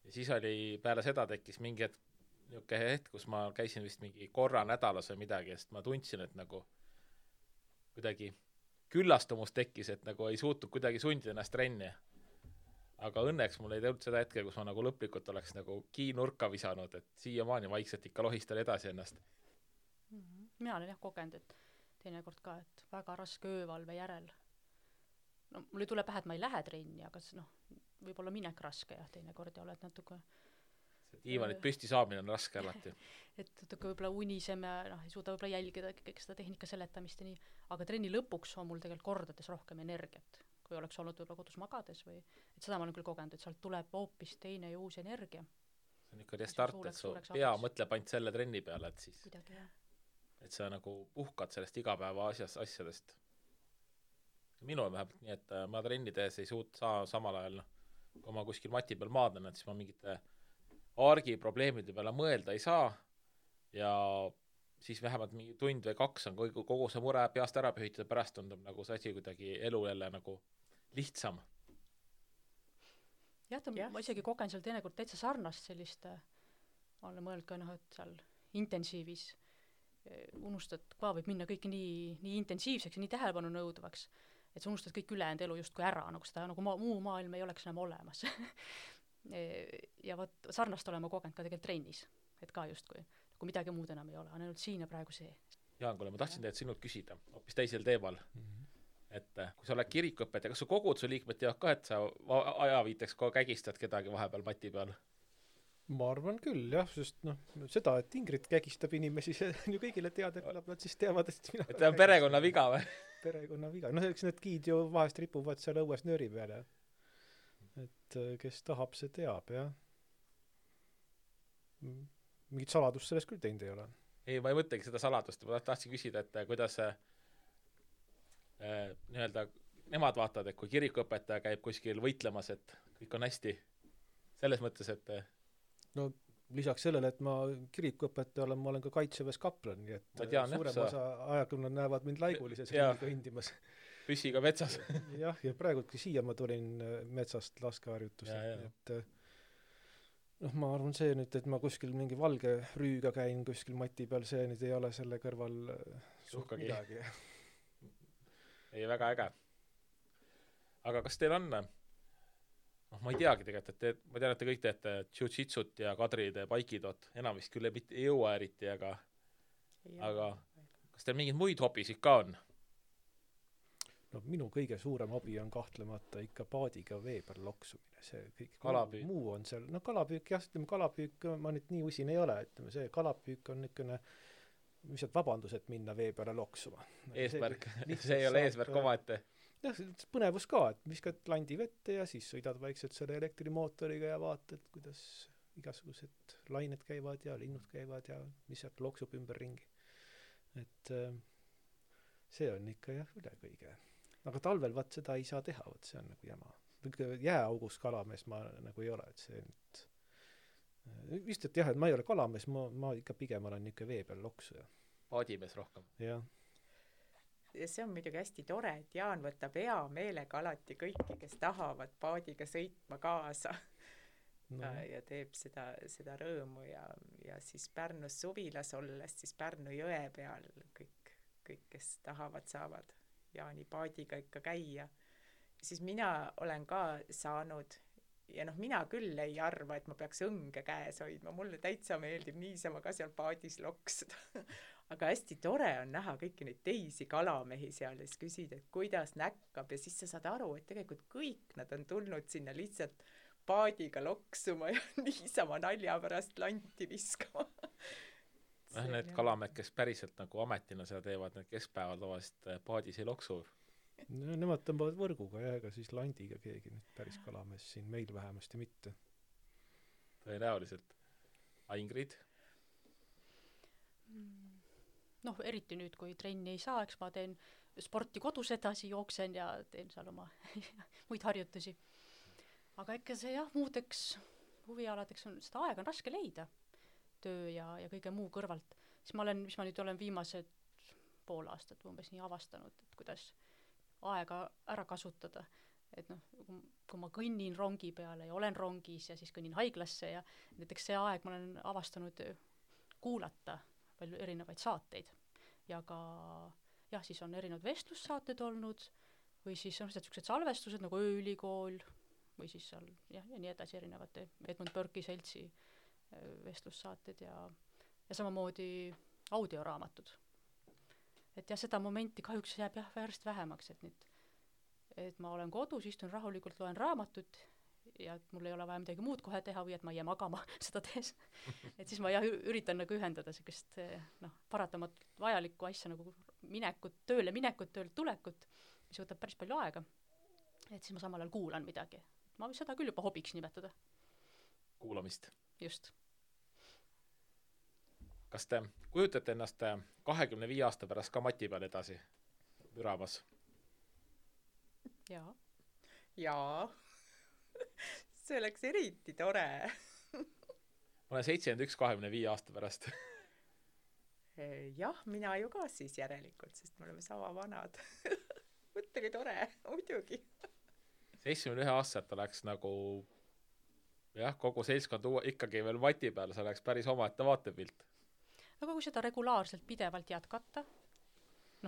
Ja siis oli, peale seda tekkis mingi hetk, kus ma käisin vist mingi korra nädalas või midagi, sest ma tundsin, et nagu kuidagi küllastumus tekkis, et nagu ei suutnud kuidagi sundida ennast trenni. Aga õnneks mul ei tulnud seda hetke, kus ma nagu lõplikult oleks nagu kiinurka visanud, et siiamaani vaikselt ikka lohistan edasi ennast. Mina olen jah kogenud, et teinekord ka, et väga raske öövalve järel. No mul ei tule pähe, et ma ei lähe trenni, aga võib-olla minek raske jah, teinekord ja oled natuke see diivanit püsti saamine on raske alati. Et natuke võib-olla uniseme, ei suuda võib-olla jälgida kõik seda tehnika seletamist ja nii, aga trenni lõpuks on mul tegelikult kordades rohkem energiat, kui oleks olnud võib-olla kodus magades või, et seda ma olen küll kogenud, et sealt tuleb hoopis teine ja uus energia. See on ikka restart, et su pea mõtleb ainult selle trenni peale, et siis kuidagi, jah. Et sa nagu puhkad sellest igapäeva asjadest. Minul vähemalt nii, et ma trenni tehes ei saa samal ajal, kui ma kuskil mati peal maadlen, et siis ma mingite argi probleemide peale mõelda ei saa ja siis vähemalt mingi tund või 2 on kogu see mure peast ära pühitud ja pärast tundub nagu see asi kuidagi elu jälle nagu lihtsam. Jah, ma isegi kogen seal teinekord täitsa sarnast sellist, olen mõelnud ka, et seal intensiivis unustad, ka võib minna kõik nii intensiivseks ja nii tähelepanu nõudvaks, et sa unustad kõik ülejäänud elu justkui ära, nagu seda muu maailm ei oleks enam olemas. Ja võt, sarnast olema kogenud ka tegelikult trennis, et ka justkui nagu midagi muud enam ei ole, on ainult siin ja praegu see. Jaan, kuule, ma tahtsin teid sinult küsida hoopis teisel teemal, et kui sa oled kirikuõpetaja, kas su kogud su liikmed teavad ka, et sa ajaviiteks kägistad kedagi vahepeal mati peal? Ma arvan küll, jah, sest seda, et Ingrid kägistab inimesi, see on ju kõigile teada, küllap nad siis teavad, et mina... Et ta on perekonna viga või? Perekonna viga. Eks need giid ju vahest ripuvad seal õues nööri peale. Et kes tahab, see teab, jah. Mingit saladust sellest küll teinud ei ole. Ei, ma ei mõtlegi seda saladust. Ma tahtsin küsida, et kuidas nii-öelda nemad vaatavad, et kui kirikuõpetaja käib kuskil võitlemas, et kõik on hästi. Selles mõttes, et no lisaks sellele, et ma kirikuõpetaja olen, ma olen ka kaitseväes kaplan, nii et suurem osa ajakonna näevad mind laigulises ringiga hindimas. Püssiga metsas. Jah, ja praegultki siia ma tulin metsast laskeharjutusse. Et ma arvan see nüüd, et ma kuskil mingi valge rüüga käin kuskil mati peal, see nüüd ei ole selle kõrval suhkagi midagi. Ei, väga äge. Aga kas teil on... ma ei teagi tegelikult, et ma tean, et te kõik teete jiu-jitsut ja Kadri teeb aikidot, enam vist küll ei jõua eriti, aga kas teil mingid muid hobisid ka on? No minu kõige suurem hobi on kahtlemata ikka paadiga vee peal loksumine, see kõik kalapüük. Muu on seal, kalapüük jah, kalapüük ma nüüd nii usin ei ole, see kalapüük on niisugune lihtsalt vabandus, et minna vee peale loksuma. Eesmärk, see ei ole eesmärk omaette. Jah, põnevus ka, et viskad landi vette ja siis sõidad vaikselt selle elektrimootoriga ja vaatad, kuidas igasugused lained käivad ja linnud käivad ja mis sealt loksub ümber ringi. Et see on ikka jah üle kõige. Aga talvel vaat seda ei saa teha, vaat see on nagu jama. Jääaugus kalamees ma nagu ei ole, et see nüüd vist, et jah, et ma ei ole kalamees, ma ikka pigem olen niisugune vee peal loksuja. Paadimees rohkem. Jah. Ja see on muidugi hästi tore, et Jaan võtab hea meelega alati kõiki, kes tahavad paadiga sõitma kaasa ja teeb seda rõõmu ja siis Pärnus suvilas olles, siis Pärnu jõe peal kõik, kes tahavad, saavad Jaani paadiga ikka käia. Siis mina olen ka saanud ja mina küll ei arva, et ma peaks õnge käes hoidma, mulle täitsa meeldib niisama ka seal paadis loksuda. Aga hästi tore on näha kõiki neid teisi kalamehi seal ja siis küsida, et kuidas näkkab ja siis sa saad aru, et tegelikult kõik nad on tulnud sinna lihtsalt paadiga loksuma ja niisama nalja pärast lanti viskama. Need kalamehed, kes päriselt nagu ametina seda teevad, need keskpäeval tavaliselt paadis ei loksu. No, nemad tõmbavad võrguga ja ega siis landiga keegi nüüd päris kalamees siin meil vähemasti mitte. Tõenäoliselt. Ingrid? Eriti nüüd, kui trenni ei saa, eks ma teen sporti kodus edasi, jooksen ja teen seal oma muid harjutusi. aga ikka see jah, muudeks huvialadeks on, seda aega on raske leida, töö ja kõige muu kõrvalt. Siis mis ma nüüd olen viimased pool aastat umbes nii avastanud, et kuidas aega ära kasutada. Et noh, kui ma kõnnin rongi peale ja olen rongis ja siis kõnnin haiglasse ja näiteks see aeg ma olen avastanud kuulata palju erinevaid saateid ja ka jah, siis on erinevad vestlussaated olnud või siis on sellised salvestused nagu Ööülikool või siis seal jah, ja nii edasi erinevate Edmund Burke'i seltsi vestlussaated ja samamoodi audioraamatud. Et jah, seda momenti kahjuks jääb jah järjest vähemaks, et ma olen kodus, istun rahulikult, loen raamatut ja et mul ei ole vaja midagi muud kohe teha või et ma ei jää magama seda tees. Et siis ma jah üritan nagu ühendada sellist paratamatult vajalikku asja nagu tööle minekut, töölt tulekut, mis võtab päris palju aega. Et siis ma samal ajal kuulan midagi. Ma võin seda küll juba hobiks nimetada. Kuulamist. Just. Kas te kujutate ennast 25 aasta pärast ka mati peal edasi müramas? Jaa. Jaa. See oleks eriti tore. Ma olen 71 25 aasta pärast. Jah, mina ju ka siis järelikult, sest me oleme sama vanad. Mõttegi tore, muidugi. 71 aastat oleks nagu jah, kogu seltskond ikkagi veel mati peal, see oleks päris omaette vaatepilt. Aga kui seda regulaarselt pidevalt jätkata,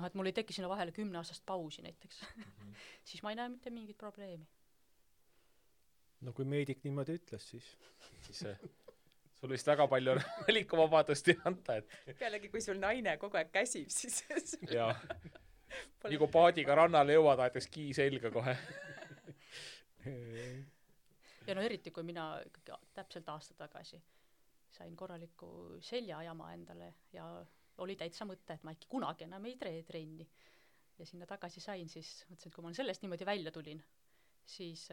et mul ei teki sinna vahele 10 aastast pausi näiteks, siis ma ei näe mitte mingit probleemi. No kui meedik niimoodi ütles, siis sul vist väga palju valikuvabadust ei anta, et pealegi, kui sul naine kogu aeg käsib, siis jaa. Nii kui paadiga rannale jõuad, aetakse kii selga kohe. Ja eriti, kui mina täpselt aasta tagasi sain korraliku seljajama endale ja oli täitsa mõte, et ma äkki kunagi enam ei trenni. Ja sinna tagasi sain, siis mõtlesin, et kui ma sellest niimoodi välja tulin, siis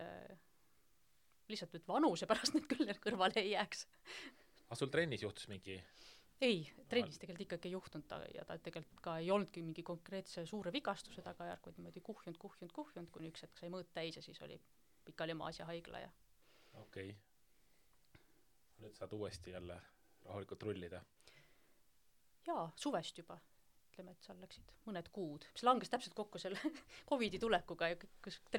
lihtsalt nüüd vanuse pärast nüüd küll kõrvale ei jääks. Aga sul trennis juhtus mingi? Ei, trennis tegelikult ikkagi ei juhtunud ja ta tegelikult ka ei olnudki mingi konkreetse suure vigastuse tagajärg, vaid niimoodi kuhjunud, kuni üks hetk sai mõõt täis ja siis oli pikali maas ja haigla ja Okei. Nüüd saad uuesti jälle rahulikult rullida. Jaa, suvest juba. Ütleme, et seal läksid mõned kuud. See langes täpselt kokku selle COVID-i tulekuga. Et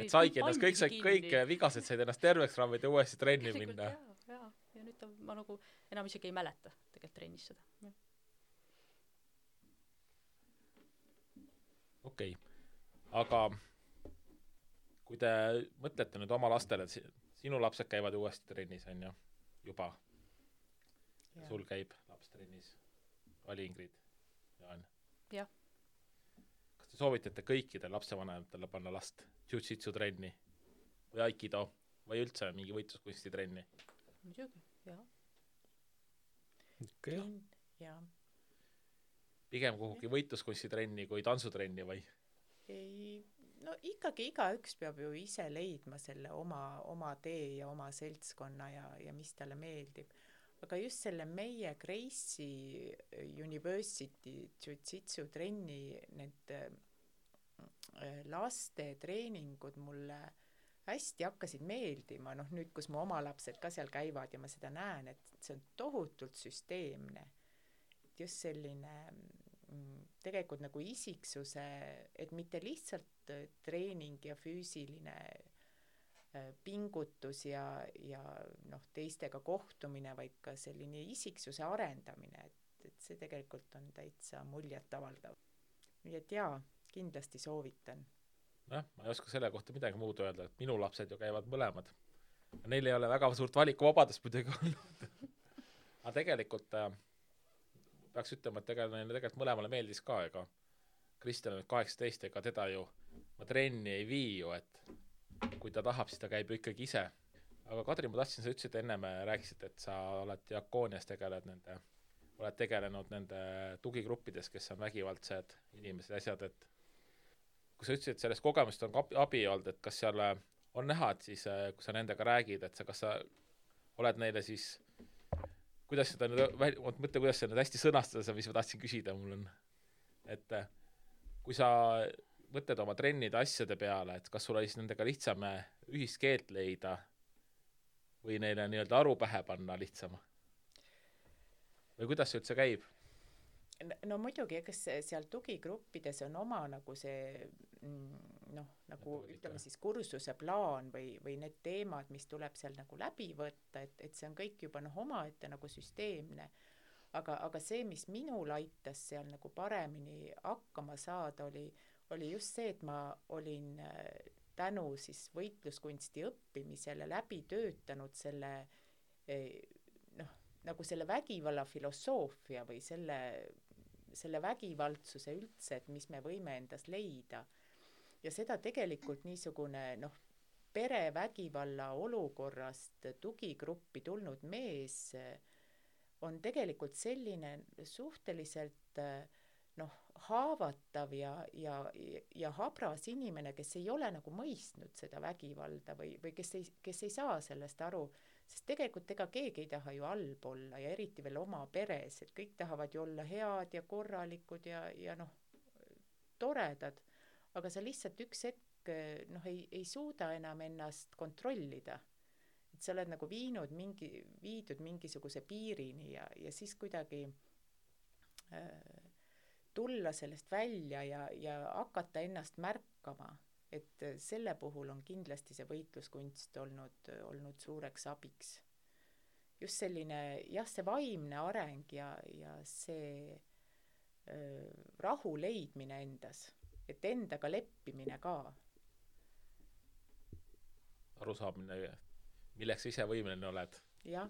saigi ennast, kõik vigased said ennast terveks rammida ja uuesti trenni minna. Jaa. Ja nüüd ma nagu enam isegi ei mäleta tegelikult trennis seda. Okei. Aga kui te mõtlete nüüd oma lastele, sinu lapsed käivad uuesti trennis, on ju, juba. Ja sul käib laps trennis. Oli Ingrid, Jaan. Jah. Kas te soovitate kõikidel lapsevanematele panna last jiu-jitsu trenni või aikido või üldse mingi võitluskunsti trenni? Muidugi, jah. Okay. Jah. Pigem kuhugi võitluskunsti trenni kui tantsutrenni või? Ei, no ikkagi igaüks peab ju ise leidma selle oma tee ja oma seltskonna ja mis talle meeldib. Aga just selle meie Gracie University jiu-jitsu trenni need laste treeningud mulle hästi hakkasid meeldima, nüüd, kus mu oma lapsed ka seal käivad ja ma seda näen, et see on tohutult süsteemne. Just selline tegelikult nagu isiksuse, et mitte lihtsalt treening ja füüsiline pingutus ja teistega kohtumine, vaid ka selline isiksuse arendamine, et see tegelikult on täitsa muljet avaldav. Nii et jaa, kindlasti soovitan. Ma ei oska selle kohta midagi muud öelda, et minu lapsed ju käivad mõlemad. Neil ei ole väga suurt valikuvabadust muidugi olnud. Aga tegelikult peaks ütlema, et tegelikult mõlemale meeldis ka, ega Kristjan on 18, ega teda ju ma trenni ei vii ju, et kui ta tahab, siis ta käib ju ikkagi ise. Aga Kadri, ma tahtsin, sa ütlesid enne, me rääkisid, et sa oled Diakoonias oled tegelenud nende tugigruppides, kes on vägivaldsed inimesed ja asjad, et kui sa ütlesid, et sellest kogemust on abi olnud, et kas seal on näha, et siis kui sa nendega räägid, et kas sa oled neile siis kuidas seda mõtle, kuidas seda hästi sõnastada, mis ma tahtsin küsida, mul on, et kui sa mõtled oma trennide asjade peale, et kas sul oli siis nendega lihtsam ühist keelt leida või neile nii-öelda aru pähe panna lihtsam? Või kuidas see üldse käib? No muidugi, ega seal tugigruppides on oma nagu see noh, nagu ütleme siis kursuse plaan või need teemad, mis tuleb seal nagu läbi võtta, et see on kõik juba noh, omaette nagu süsteemne. Aga see, mis minul aitas seal nagu paremini hakkama saada, oli just see, et ma olin tänu siis võitluskunsti õppimisele läbi töötanud selle noh, nagu selle vägivalla filosoofia või selle vägivaldsuse üldse, et mis me võime endas leida. Ja seda tegelikult niisugune noh, perevägivalla olukorrast tugigruppi tulnud mees on tegelikult selline suhteliselt noh, haavatav ja habras inimene, kes ei ole nagu mõistnud seda vägivalda või kes ei saa sellest aru, sest tegelikult ega keegi ei taha ju halb olla ja eriti veel oma peres, et kõik tahavad ju olla head ja korralikud ja noh, toredad, aga sa lihtsalt üks hetk noh, ei suuda enam ennast kontrollida. Et sa oled nagu viidud mingisuguse piirini ja siis kuidagi tulla sellest välja ja hakata ennast märkama, et selle puhul on kindlasti see võitluskunst olnud suureks abiks. Just selline, jah, see vaimne areng ja see rahu leidmine endas, et endaga leppimine ka. Arusaamine, milleks ise võimeline oled. Jah.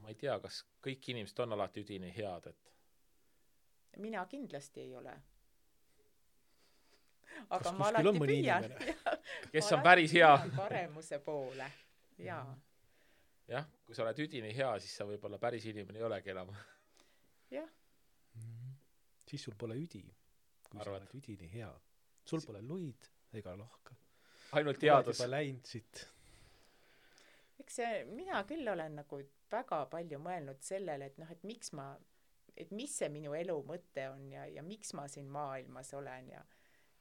Ma ei tea, kas kõik inimesed on alati üdini head, et mina kindlasti ei ole. Aga ma alati püüan. Kes on päris hea? Paremuse poole. Jah, kui sa oled üdini hea, siis sa võib-olla päris inimene ei olegi enam. Jah. Siis sul pole üdi, kui sa oled üdini hea. Sul pole luid ega lohka. Ainult teadus. Juba läinud siit. Eks mina küll olen nagu väga palju mõelnud sellele, et noh, et mis see minu elu mõte on ja miks ma siin maailmas olen ja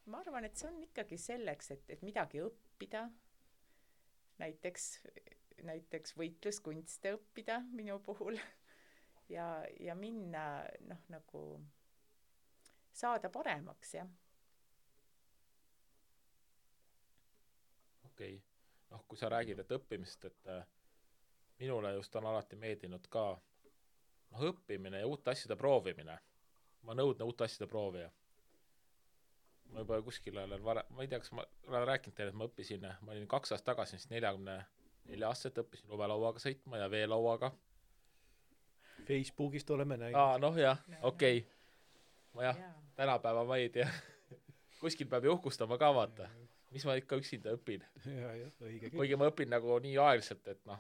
ma arvan, et see on ikkagi selleks, et midagi õppida, näiteks võitluskunste õppida minu puhul ja minna noh, nagu saada paremaks, jah. Okei. Noh, kui sa räägid, et õppimist, et minule just on alati meeldinud ka õppimine ja uute asjade proovimine. Ma nõudne uute asjade proovija. Ma juba kuskil olen ma ei tea, kas ma olen rääkinud teile, et ma õppisin, ma olin 2 aastat tagasi, 44 aastat õppisin lumelauaga sõitma ja veelauaga. Facebookist oleme näinud. Noh jah, okei. Ma tänapäeva ma ei tea. Kuskil peab ju uhkustama ka vaata. Mis ma ikka üksinda õpin. Kuigi ma õpin nagu nii aeglaselt, et noh,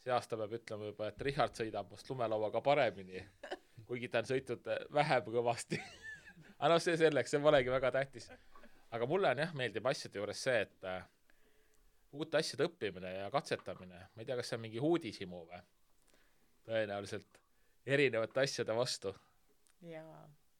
see aasta peab ütlema juba, et Richard sõidab must lumelauaga paremini, kuigi ta on sõitnud vähem kõvasti. Aga see selleks, see polegi väga tähtis. Aga mulle on meeldib asjade juures see, et uute asjade õppimine ja katsetamine, ma ei tea, kas see on mingi uudishimu või? Tõenäoliselt erinevate asjade vastu.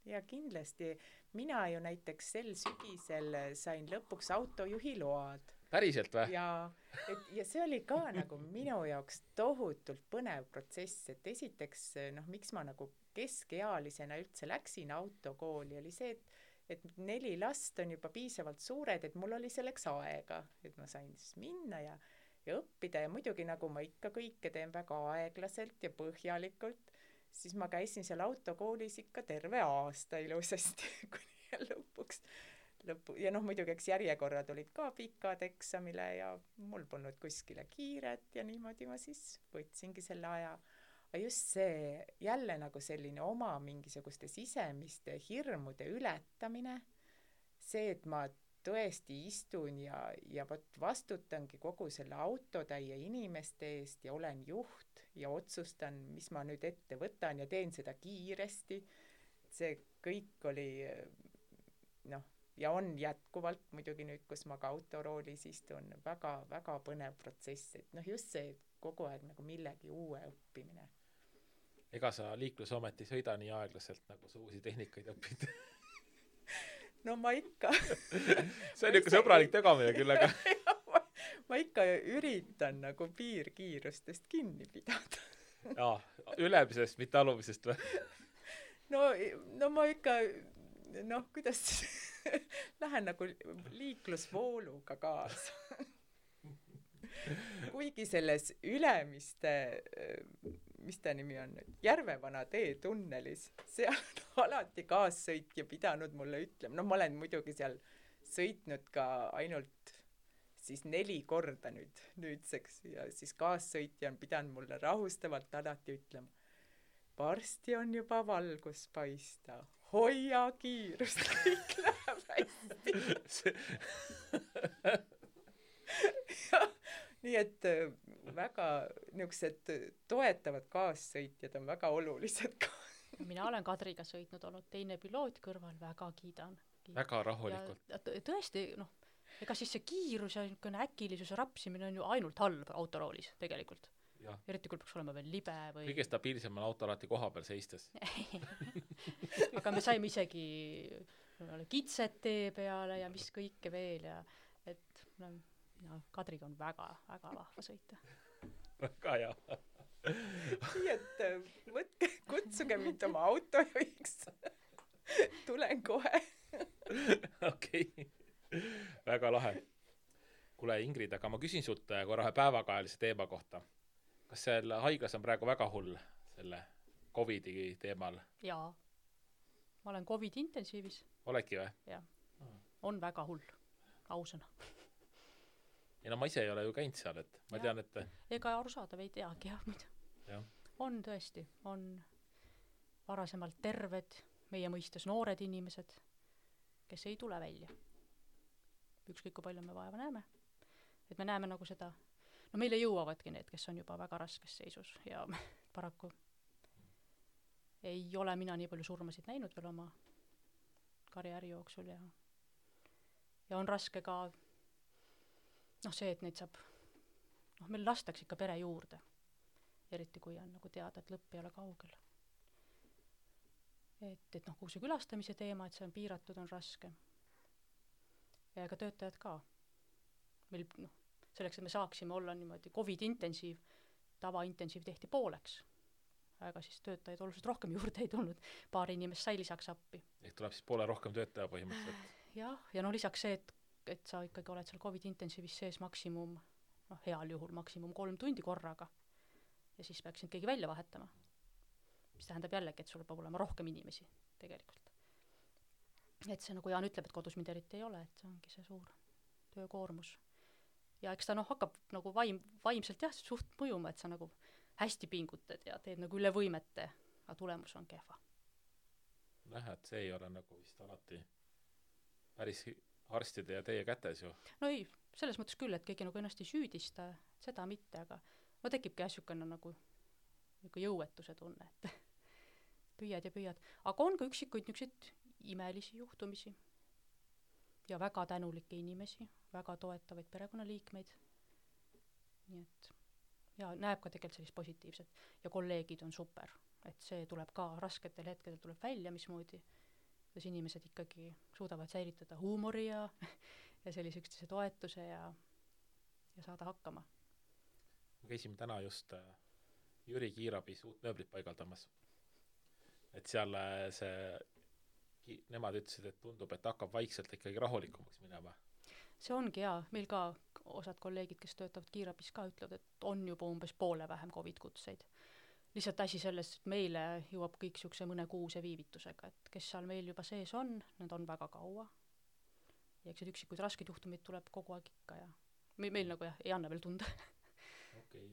Ja kindlasti. Mina ju näiteks sel sügisel sain lõpuks autojuhi load. Päriselt või? Ja see oli ka nagu minu jaoks tohutult põnev protsess, et esiteks, noh, miks ma nagu keskealisena üldse läksin autokooli, oli see, et 4 last on juba piisavalt suured, et mul oli selleks aega, et ma sain siis minna ja õppida ja muidugi nagu ma ikka kõike teen väga aeglaselt ja põhjalikult, siis ma käisin seal autokoolis ikka terve aasta ilusasti, kuni lõpuks. Ja noh, muidugi eks järjekorrad olid ka pikad eksamile ja mul polnud kuskile kiiret ja niimoodi ma siis võtsingi selle aja. Aga just see jälle nagu selline oma mingisuguste sisemiste hirmude ületamine, see, et ma tõesti istun ja vastutangi kogu selle autotäie inimeste eest ja olen juht ja otsustan, mis ma nüüd ette võtan ja teen seda kiiresti. See kõik oli noh, ja on jätkuvalt muidugi nüüd, kus ma ka autoroolis istun, väga, väga põnev protsess, et noh, just see kogu aeg nagu millegi uue õppimine. Ega sa liiklusometi sõida nii aeglaselt, nagu sa uusi tehnikaid õpid? No ma ikka. See on ikka sõbralik tegamine küll, aga ma ikka üritan nagu piirkiirustest kinni pidada. Jaa, ülemisest, mitte alumisest või? No ma ikka, kuidas lähen nagu liiklusvooluga kaasa. Kuigi selles Ülemiste, mis ta nimi on nüüd, Järvevana tee tunnelis, seal on alati kaassõitja pidanud mulle ütlema, ma olen muidugi seal sõitnud ka ainult siis 4 korda nüüdseks ja siis kaassõitja on pidanud mulle rahustavalt alati ütlema, varsti on juba valgus paista, hoia kiirust, kõik läheb hästi. Nii et väga niisugused toetavad kaassõitjad on väga olulised ka. Mina olen Kadriga sõitnud, olnud teine piloot kõrval, väga kiidan. Väga rahulikult. Ja tõesti, ega siis see kiirus ja äkilisuse rapsimine on ju ainult halb autoroolis tegelikult. Ja. Eriti kui peaks olema veel libe või... Kõige stabiilsem on auto alati koha peal seistes. Aga me saime isegi kitset tee peale ja mis kõike veel ja et Kadriga on väga, väga vahva sõita. Väga hea. Nii et kutsuge mind oma autojuhiks. Tulen kohe. Okei. Väga lahe. Kuule Ingrid, aga ma küsin sult korra päevakajalise teema kohta. Kas seal haiglas on praegu väga hull selle COVID-i teemal? Jaa. Ma olen COVID intensiivis. Oledki või? Jah. On väga hull. Ausõna. Ja ma ise ei ole ju käinud seal, et ma tean, et... Ega arusaadav ei teagi, jah, muidu. Ja. On tõesti, on varasemalt terved, meie mõistes noored inimesed, kes ei tule välja. Ükskõik kui palju me vaeva näeme. Et me näeme nagu seda... meile jõuavadki need, kes on juba väga raskes seisus ja paraku ei ole mina nii palju surmasid näinud veel oma karjääri jooksul ja on raske ka see, et neid saab meil lastakse ikka pere juurde, eriti kui on nagu teada, et lõpp ei ole kaugel. Et kui see külastamise teema, et see on piiratud, on raske. Ja ega töötajad ka. Meil selleks, et me saaksime olla niimoodi COVID-intensiiv, tavaintensiiv tehti pooleks. Aga siis töötajaid oluliselt rohkem juurde ei tulnud. Paar inimest sai lisaks appi. Ehk tuleb siis poole rohkem töötaja põhimõtteliselt. Ja lisaks see, et sa ikkagi oled seal COVID-intensiivis sees maksimum, heal juhul maksimum 3 tundi korraga. Ja siis peaksid keegi välja vahetama. Mis tähendab jällegi, et sul peab olema rohkem inimesi tegelikult. Et see, nagu Jaan ütleb, et kodus mind eriti ei ole, et see ongi see suur töökoormus. Ja eks ta hakkab nagu vaimselt suht mõjuma, et sa nagu hästi pingutad ja teed nagu üle võimete, aga tulemus on kehva. Et see ei ole nagu vist alati päris arstide ja teie kätes ju. No ei, selles mõttes küll, et keegi nagu ennast ei süüdista, seda mitte, aga tekibki äsjukene nagu jõuetuse tunne, et püüad ja püüad. Aga on ka üksikuid niisuguseid imelisi juhtumisi ja väga tänulikke inimesi, väga toetavaid perekonnaliikmeid. Nii et näeb ka tegelikult sellist positiivset ja kolleegid on super, et see tuleb ka rasketel hetkedel tuleb välja, mismoodi, kuidas inimesed ikkagi suudavad säilitada huumori ja sellise üksteise toetuse ja saada hakkama. Me käisime täna just Jüri Kiirabis uut mööblit paigaldamas. Et seal nemad ütlesid, et tundub, et hakkab vaikselt ikkagi rahulikumaks minema. See ongi meil ka osad kolleegid, kes töötavad Kiirabis ka ütlevad, et on juba umbes poole vähem COVID-kutseid. Lihtsalt asi selles, et meile jõuab kõik siukse mõne kuuse viivitusega, et kes seal meil juba sees on, need on väga kaua. Ja eks üksikuid raskeid juhtumid tuleb kogu aeg ikka ja meil nagu ei anna veel tunda. Okei.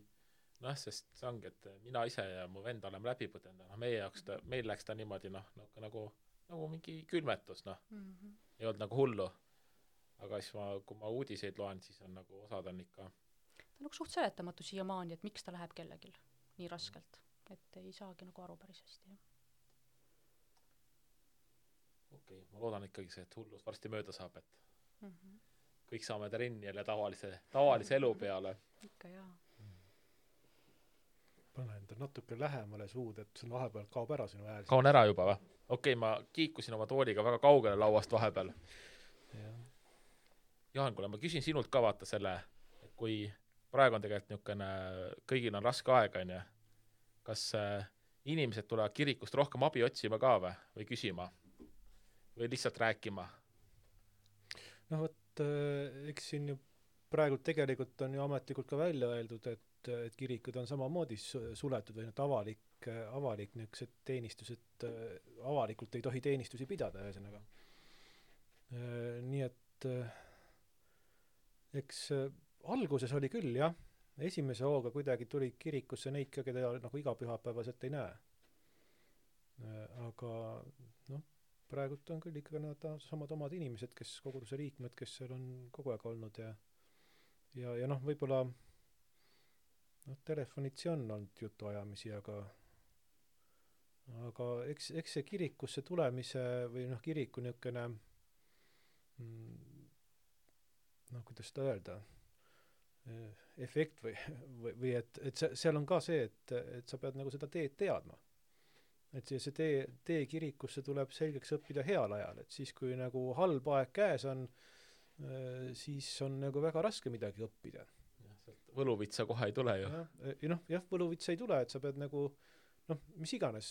Sest see ongi, et mina ise ja mu vend oleme läbi põdenda. Meil läks ta niimoodi nagu mingi külmetus, ei olnud nagu hullu. Aga siis kui ma uudiseid loen, siis on nagu osad on ikka... Ta on nagu suht seletamatu siiamaani, et miks ta läheb kellegil nii raskelt. Et ei saagi nagu aru päris hästi. Okei, ma loodan ikkagi see, et hullus varsti mööda saab, et kõik saame trenni jälle tavalise elu peale. Ikka jaa. Pane enda natuke lähemale suud, et see vahepeal kaob ära sinu hääl. Kaon ära juba või? Okei, ma kiikusin oma tooliga väga kaugele lauast vahepeal. Jaan, kuule, ma küsin sinult ka vaata selle, kui praegu on tegelikult niisugune, kõigil on raske aeg, on ju, kas inimesed tulevad kirikust rohkem abi otsima ka või küsima või lihtsalt rääkima? No vot, eks siin ju praegu tegelikult on ju ametlikult ka välja öeldud, et kirikud on samamoodi suletud või avalik niisugused teenistused, avalikult ei tohi teenistusi pidada, ühesõnaga. Nii et eks alguses oli küll, jah, esimese hooga kuidagi tuli kirikusse neid ka, keda nagu igapühapäevaselt ei näe. Aga noh, praegult on küll ikkagi nad samad omad inimesed, kes koguduse liikmed, kes seal on kogu aeg olnud ja noh, võib-olla telefonitsi on olnud jutuajamisi, aga eks see kirikusse tulemise või noh, kiriku niisugune kuidas seda öelda, efekt või et seal on ka see, et sa pead nagu seda teed teadma. Et see tee kirikusse tuleb selgeks õppida heal ajal, et siis kui nagu halb aeg käes on, siis on nagu väga raske midagi õppida. Võluvitsa kohe ei tule ju. Jah, võluvitsa ei tule, et sa pead nagu mis iganes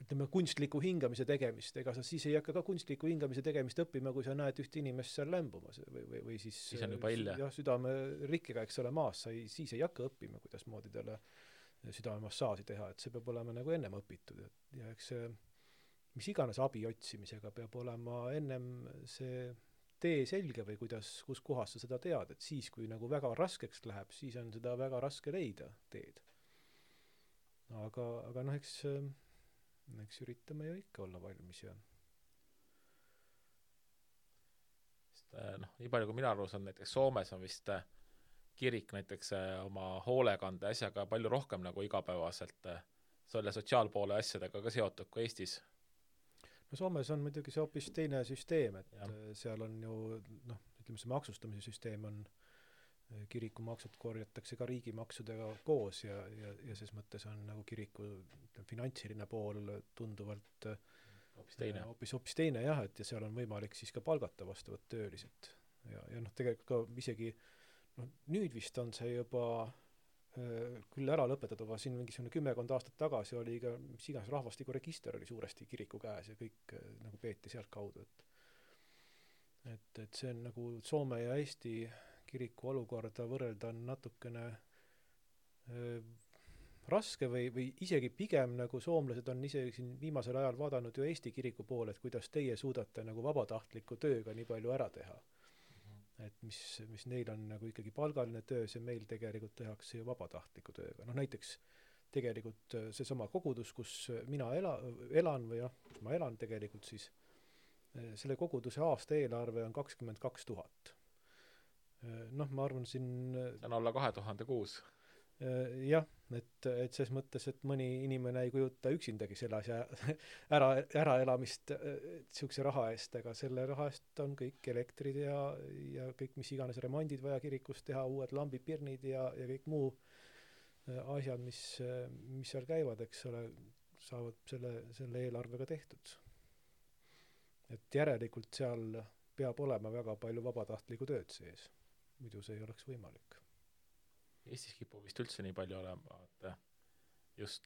ütleme kunstliku hingamise tegemist, ega sa siis ei hakka ka kunstliku hingamise tegemist õppima, kui sa näed üht inimest seal lämbumas või siis on juba hilja. Jah, südame rikkega, eks ole, maas, siis ei hakka õppima, kuidas moodi talle südamemassaaži teha, et see peab olema nagu ennem õpitud ja eks see mis iganes abi otsimisega peab olema ennem see tee selge või kus kohas sa seda tead, et siis kui nagu väga raskeks läheb, siis on seda väga raske leida teed. Aga noh, eks üritame ju ikka olla valmis ja nii palju kui mina aru saan, näiteks Soomes on vist kirik näiteks oma hoolekande asjaga palju rohkem nagu igapäevaselt selle sotsiaalpoole asjadega ka seotud kui Eestis. No Soomes on muidugi see hoopis teine süsteem, et seal on ju ütleme see maksustamise süsteem on kirikumaksud korjatakse ka riigimaksudega koos ja ses mõttes on nagu kiriku finantsiline pool tunduvalt hoopis teine jah, et ja seal on võimalik siis ka palgata vastavat töölised ja tegelikult ka isegi nüüd vist on see juba küll ära lõpetatud, aga siin mingisugune 10 aastat tagasi oli ka mis iganes rahvastikuregister oli suuresti kiriku käes ja kõik nagu peeti sealt kaudu, et see on nagu Soome ja Eesti kiriku olukorda võrrelda on natukene raske või isegi pigem nagu soomlased on isegi siin viimasel ajal vaadanud ju Eesti kiriku poole, et kuidas teie suudate nagu vabatahtliku tööga nii palju ära teha. Et mis neil on nagu ikkagi palgaline töö, see meil tegelikult tehakse ju vabatahtliku tööga. Näiteks tegelikult seesama kogudus, kus mina elan või kus ma elan tegelikult siis, selle koguduse aasta eelarve on 22 000. Ma arvan siin see on alla 2000 kuus. Jah, et ses mõttes, et mõni inimene ei kujuta üksindagi selle asja äraelamist sihukese raha eest, aga selle raha eest on kõik elektrid ja kõik mis iganes remondid vaja kirikus teha, uued lambipirnid ja kõik muu asjad, mis seal käivad, eks ole, saavad selle eelarvega tehtud. Et järelikult seal peab olema väga palju vabatahtlikku tööd sees, muidu see ei oleks võimalik. Eestis kipub vist üldse nii palju olema, et just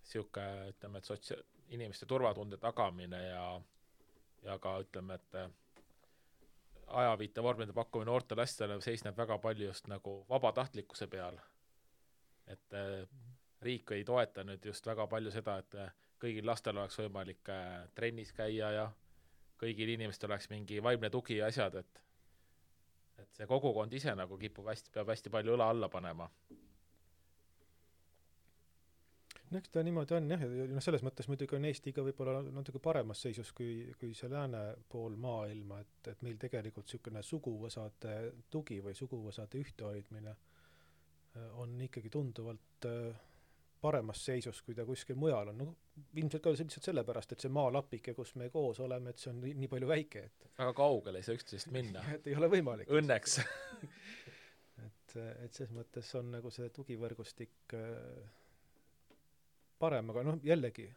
sihuke, ütleme, et inimeste turvatunde tagamine ja ka ütleme, et ajaviite vormide pakkumine noorte lastele seisneb väga palju just nagu vabatahtlikkuse peal. Et riik ei toeta nüüd just väga palju seda, et kõigil lastel oleks võimalik trennis käia ja kõigil inimestel oleks mingi vaimne tugi ja asjad, et see kogukond ise nagu peab hästi palju õla alla panema. Eks ta niimoodi on jah, ja selles mõttes muidugi on Eesti ka võib-olla natuke paremas seisus kui see lääne pool maailma, et meil tegelikult niisugune suguvõsade tugi või suguvõsade ühtehoidmine on ikkagi tunduvalt paremas seisus, kui ta kuskil mujal on. Ilmselt ka lihtsalt sellepärast, et see maalapike, kus me koos oleme, et see on nii palju väike, et väga kaugele ei saa üksteisest minna. Et ei ole võimalik. Õnneks. et ses mõttes on nagu see tugivõrgustik parem, aga jällegi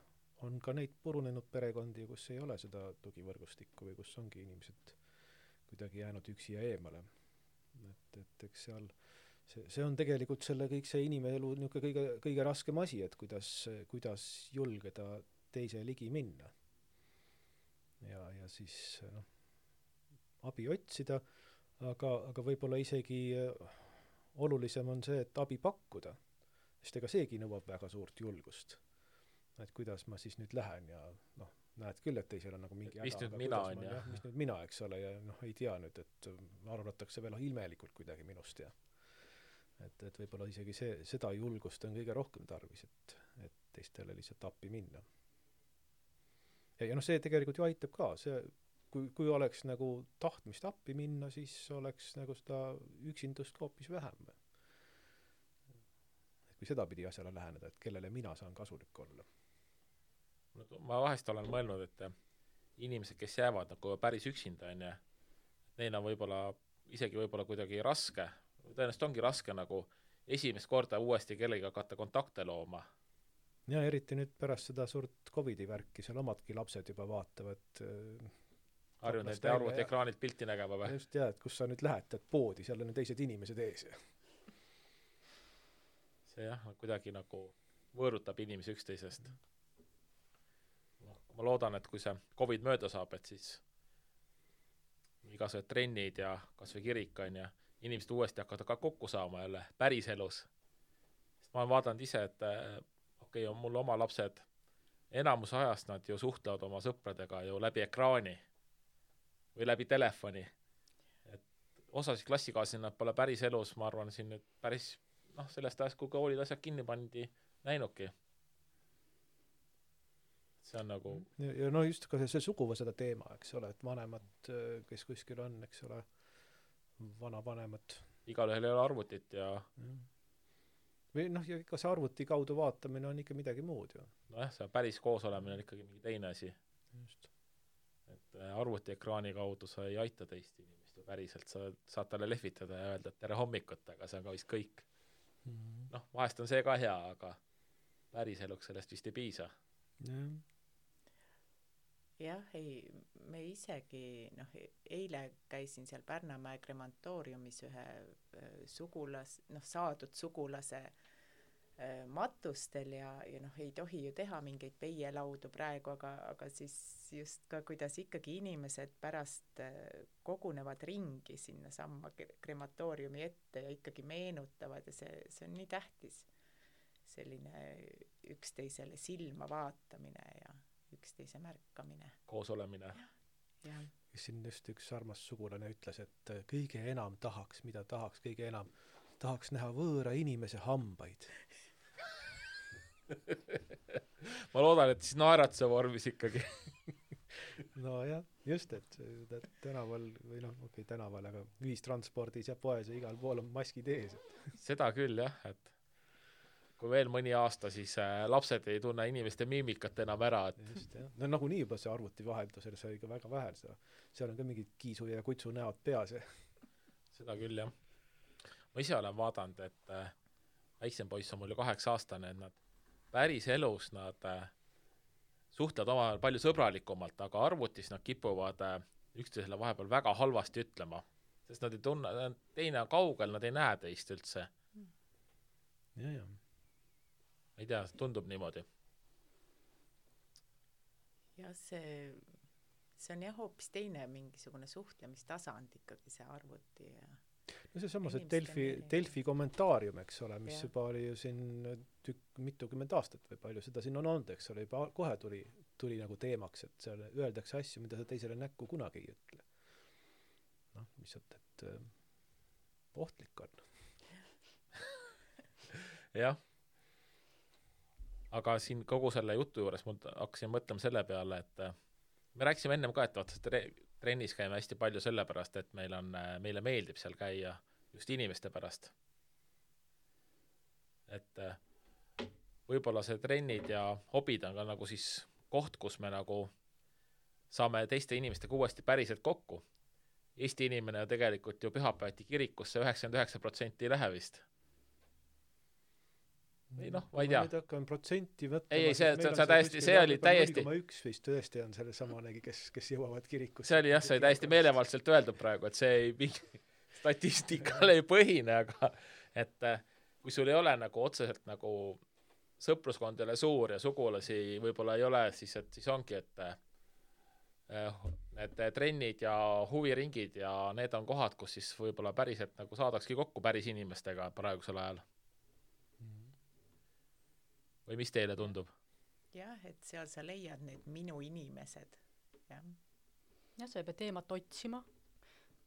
on ka neid purunenud perekondi, kus ei ole seda tugivõrgustikku või kus ongi inimesed kuidagi jäänud üksi ja eemale. Et eks seal see on tegelikult kõik see inimelu niisugune kõige raskem asi, et kuidas julgeda teise ligi minna. Ja siis abi otsida, aga võib-olla isegi olulisem on see, et abi pakkuda, sest ega seegi nõuab väga suurt julgust. Et kuidas ma siis nüüd lähen ja näed küll, et teisel on nagu mingi mis nüüd mina on, jah. Mis nüüd mina, eks ole, ja ei tea nüüd, et arvatakse veel ilmelikult kuidagi minust ja et võib-olla isegi seda julgust on kõige rohkem tarvis, et teistele lihtsalt appi minna. Ja see tegelikult ju aitab ka, kui oleks nagu tahtmist appi minna, siis oleks nagu seda üksindust hoopis vähem. Et kui seda pidi asjale läheneda, et kellele mina saan kasulik olla. Ma vahest olen mõelnud, et inimesed, kes jäävad nagu päris üksinda, neil on isegi kuidagi raske, tõenäoliselt ongi raske nagu esimest korda uuesti kellega hakata kontakte looma. Ja eriti nüüd pärast seda suurt COVID-i värki, seal omadki lapsed juba vaatavad harjunud nende arvuti ekraanilt pilti nägema või? Just et kus sa nüüd lähed poodi, seal on teised inimesed ees. See kuidagi nagu võõrutab inimesi üksteisest. Ma loodan, et kui see COVID mööda saab, et siis igasugused trennid ja kas või kirik on ja inimesed uuesti hakkavad ka kokku saama jälle päris elus. Sest ma olen vaadanud ise, et on mul oma lapsed, enamus ajast nad ju suhtlevad oma sõpradega ju läbi ekraani või läbi telefoni. Et osasid klassikaaslasi nad pole päris elus, ma arvan, siin nüüd päris sellest ajast, kui koolid asjad kinni pandi, näinudki. See on nagu ja just ka see suguvõsada teema, eks ole, et vanemad, kes kuskil on, eks ole, vanavanemad. Igalühel ei ole arvutit ja või ja ikka see arvuti kaudu vaatamine on ikka midagi muud ju. See päris koos olemine on ikkagi mingi teine asi. Just. Et arvuti ekraani kaudu sa ei aita teist inimest ja päriselt sa saad talle lehvitada ja öelda, et tere hommikut, aga see on ka vist kõik. Vahest on see ka hea, aga päris eluks sellest vist ei piisa. Jah, me isegi, eile käisin seal Pärnamäe kremantooriumis ühe saadud sugulase matustel ja ei tohi ju teha mingeid peielaudu praegu, aga siis just ka, kuidas ikkagi inimesed pärast kogunevad ringi sinna samma krematooriumi ette ja ikkagi meenutavad ja see on nii tähtis. Selline üksteisele silma vaatamine ja üksteise märkamine. Koos olemine. Ja. Siin just üks armas sugulane ütles, et kõige enam kõige enam tahaks näha võõra inimese hambaid. Ma loodan, et siis naeratuse vormis ikkagi. Jah, just, et tänaval või tänaval, aga ühistranspordis ja poes ja igal pool on maskid ees. Seda küll jah, et kui veel mõni aasta, siis lapsed ei tunne inimeste miimikat enam ära. Et just, jah. Nagunii juba see arvuti vaheldusel, see oli ka väga vähe. Seal on ka mingid kiisu ja kutsu näod peas. Seda küll, jah. Ma ise olen vaadanud, et väiksem poiss on mul ju 8-aastane, et nad päris elus nad suhtlevad omavahel palju sõbralikumalt, aga arvutis nad kipuvad üksteisele vahepeal väga halvasti ütlema. Sest nad ei tunne, teine on kaugel, nad ei näe teist üldse. Ja. Ei tea, tundub niimoodi. Ja see on jah hoopis teine mingisugune suhtlemistasand ikkagi see arvuti. Ja see samas, et Delfi kommentaarium, eks ole, mis juba oli ju siin mitukümmend aastat või palju seda siin on olnud, eks ole, juba kohe tuli nagu teemaks, et seal öeldakse asju, mida sa teisele näkku kunagi ei ütle. Lihtsalt, et ohtlik on. Jah. Aga siin kogu selle jutu juures ma hakkasin mõtlema selle peale, et me rääkisime ennem ka, et trennis käime hästi palju sellepärast, et meile meeldib seal käia just inimeste pärast. Et võib-olla see trennid ja hobid on ka nagu siis koht, kus me nagu saame teiste inimestega uuesti päriselt kokku. Eesti inimene tegelikult ju pühapäevati kirikusse 99% ei lähe vist. või noh, ma ei tea. Nüüd hakkan protsenti võtta. Ei, see täiesti, see oli täiesti 0,1 vist tõesti on selle samanegi, kes jõuavad kirikusse. See oli jah, see oli täiesti meelevaldselt öeldud praegu, et see ei statistikale ei põhine, aga et kui sul ei ole nagu otseselt nagu sõpruskond ei ole suur ja sugulasi võib-olla ei ole, siis ongi, et need trennid ja huviringid ja need on kohad, kus siis võib-olla päriselt nagu saadakski kokku päris inimestega praegusel ajal. Või mis teile tundub? Jah, et seal sa leiad need minu inimesed. Jah, sa ei pea teemat otsima,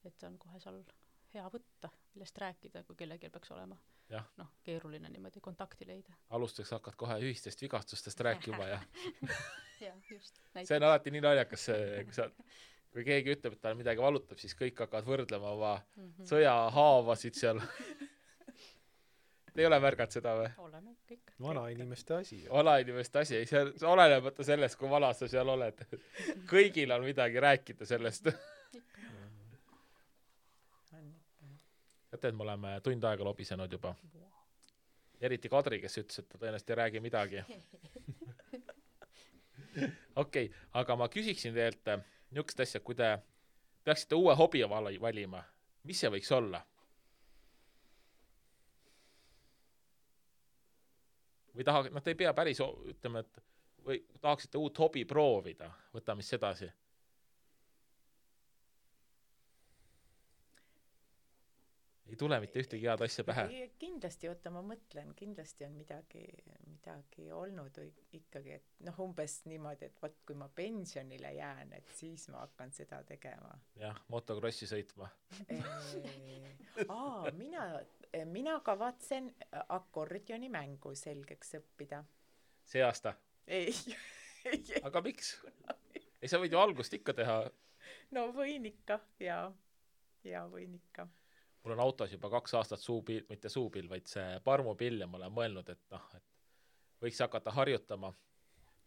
et on kohe seal hea võtta, millest rääkida, kui kellelgi peaks olema. Noh, keeruline niimoodi kontakti leida. Alustuseks hakkad kohe ühistest vigastustest rääkima ja ja, just. See on alati nii naljakas, kui keegi ütleb, et tal midagi valutab, siis kõik hakkavad võrdlema oma sõjahaavasid seal. Te ei ole märganud seda või? Oleme kõik. Vanainimeste asi. Vanainimeste asi, ei see olenebata sellest, kui vana sa seal oled. Kõigil on midagi rääkida sellest. Teate, et me oleme tund aega lobisenud juba. Eriti Kadri, kes ütles, et ta tõenäoliselt ei räägi midagi. Okei, aga ma küsiksin teilt niisugust asja, kui te peaksite uue hobi valima, mis see võiks olla? Või te ei pea päris, ütleme, et või tahaksite uut hobi proovida, võtame siis edasi. Ei tule mitte ühtegi head asja pähe. Kindlasti, ma mõtlen, kindlasti on midagi olnud ikkagi, et umbes niimoodi, et võt, kui ma pensionile jään, et siis ma hakkan seda tegema. Jah, motokrossi sõitma. Mina kavatsen akordioni mängu selgeks õppida. See aasta? Ei. Aga miks? Ei, sa võid ju algust ikka teha. No võin ikka, ja võin ikka. Mul on autos juba 2 aastat suupill, mitte suupill, vaid see parmupill ja ma olen mõelnud, et võiks hakata harjutama.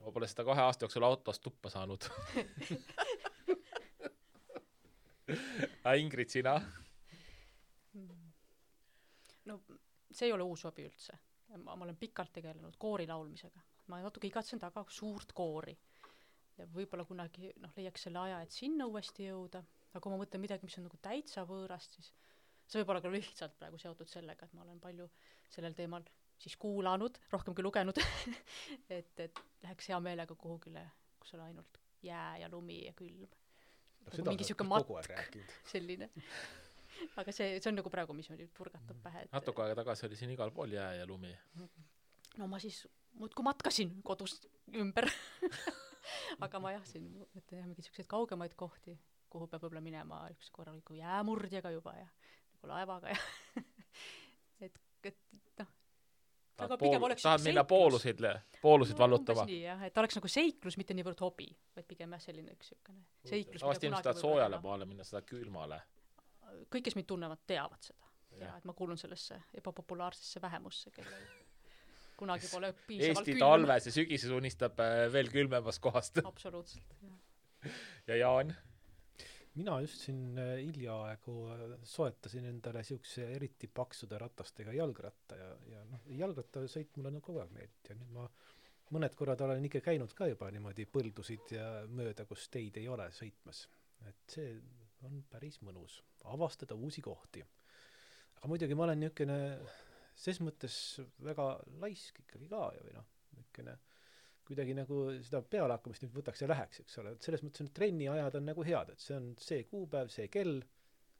Ma pole seda 2 aasta jooksul autos tuppa saanud. Ingrid, sina? No see ei ole uus hobi üldse. Ma olen pikalt tegelenud koori laulmisega. Ma natuke igatsen taga suurt koori. Ja võib-olla kunagi leiaks selle aja, et sinna uuesti jõuda. Aga kui ma mõtlen midagi, mis on nagu täitsa võõrast, siis see võib olla ka lihtsalt praegu seotud sellega, et ma olen palju sellel teemal siis kuulanud, rohkem kui lugenud, et läheks hea meelega kuhugile, kus on ainult jää ja lumi ja külm. Nagu mingi siuke matk, selline. Aga see on nagu praegu, mis oli purgatab pähe. Natuke aega tagasi oli siin igal pool jää ja lumi. No ma siis muudkui matkasin kodust ümber. Aga ma siin mõtlen mingi siukseid kaugemaid kohti, kuhu peab võib-olla minema üks korraliku jäämurdjaga juba ja laevaga ja tahad minna poolusid vallutama? Nii, jah, et oleks nagu seiklus, mitte niivõrd hobi, vaid pigem selline üks seiklus. Tavasti ilmselt tahad soojale maale minna, seda külmale. Kõik, kes mind tunnevad, teavad seda. Ja, et ma kuulun sellesse ebapopulaarsesse vähemusse, kellel kunagi pole piisavalt Eesti talves ja sügises unistab veel külmemast kohast. Absoluutselt, jah. Ja Jaan? Mina just siin hiljaaegu soetasin endale siukse eriti paksude ratastega jalgratta ja jalgrattasõit mulle on kogu aeg meeldib ja nüüd ma mõned korrad olen ikka käinud ka juba niimoodi põldusid ja mööda, kus teid ei ole sõitmas. Et see on päris mõnus avastada uusi kohti. Aga muidugi ma olen niisugune ses mõttes väga laisk ikkagi ka või niisugune kuidagi nagu seda pealehakkamist nüüd võtaks ja läheks, eks ole. Et selles mõttes on trenni ajad on nagu head, et see on see kuupäev, see kell.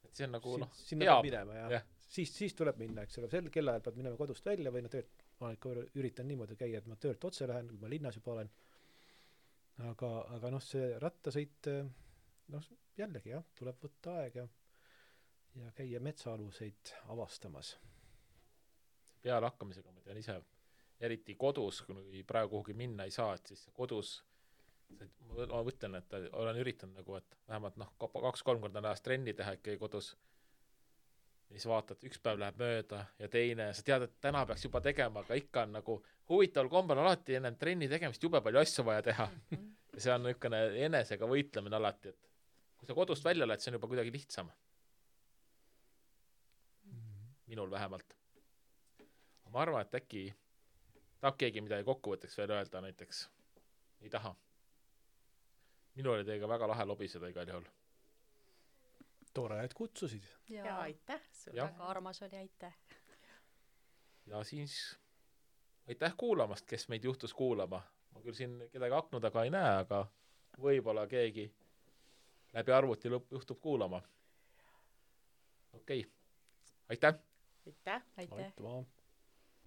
Et see on nagu sinna peab minema ja siis tuleb minna, eks ole. Sel kellaajal pead minema kodust välja või ma ikka üritan niimoodi käia, et ma töölt otse lähen, kui ma linnas juba olen. Aga see rattasõit, jällegi tuleb võtta aeg ja käia metsaaluseid avastamas. Pealehakkamisega ma tean ise eriti kodus, kui praegu kuhugi minna ei saa, et siis kodus ma mõtlen, et olen üritanud nagu, et vähemalt 2-3 korda nädalast trenni teha ikkagi kodus. Ja siis vaatad, üks päev läheb mööda ja teine, sa tead, et täna peaks juba tegema, aga ikka on nagu huvitaval kombel alati enne trenni tegemist jube palju asju vaja teha. Ja see on niisugune enesega võitlemine alati, et kui sa kodust välja lähed, see on juba kuidagi lihtsam. Minul vähemalt. Ma arvan, et äkki tahab keegi midagi kokkuvõtteks veel öelda näiteks? Ei taha? Minul oli teiega väga lahe lobiseda igal juhul. Tore, et kutsusid. Ja aitäh sulle. Väga armas oli, aitäh. Ja siis aitäh kuulamast, kes meid juhtus kuulama. Ma küll siin kedagi aknu taga ei näe, aga võib-olla keegi läbi arvuti juhtub kuulama. Okei. Aitäh! Aitäh! Aitäh! Aitüma!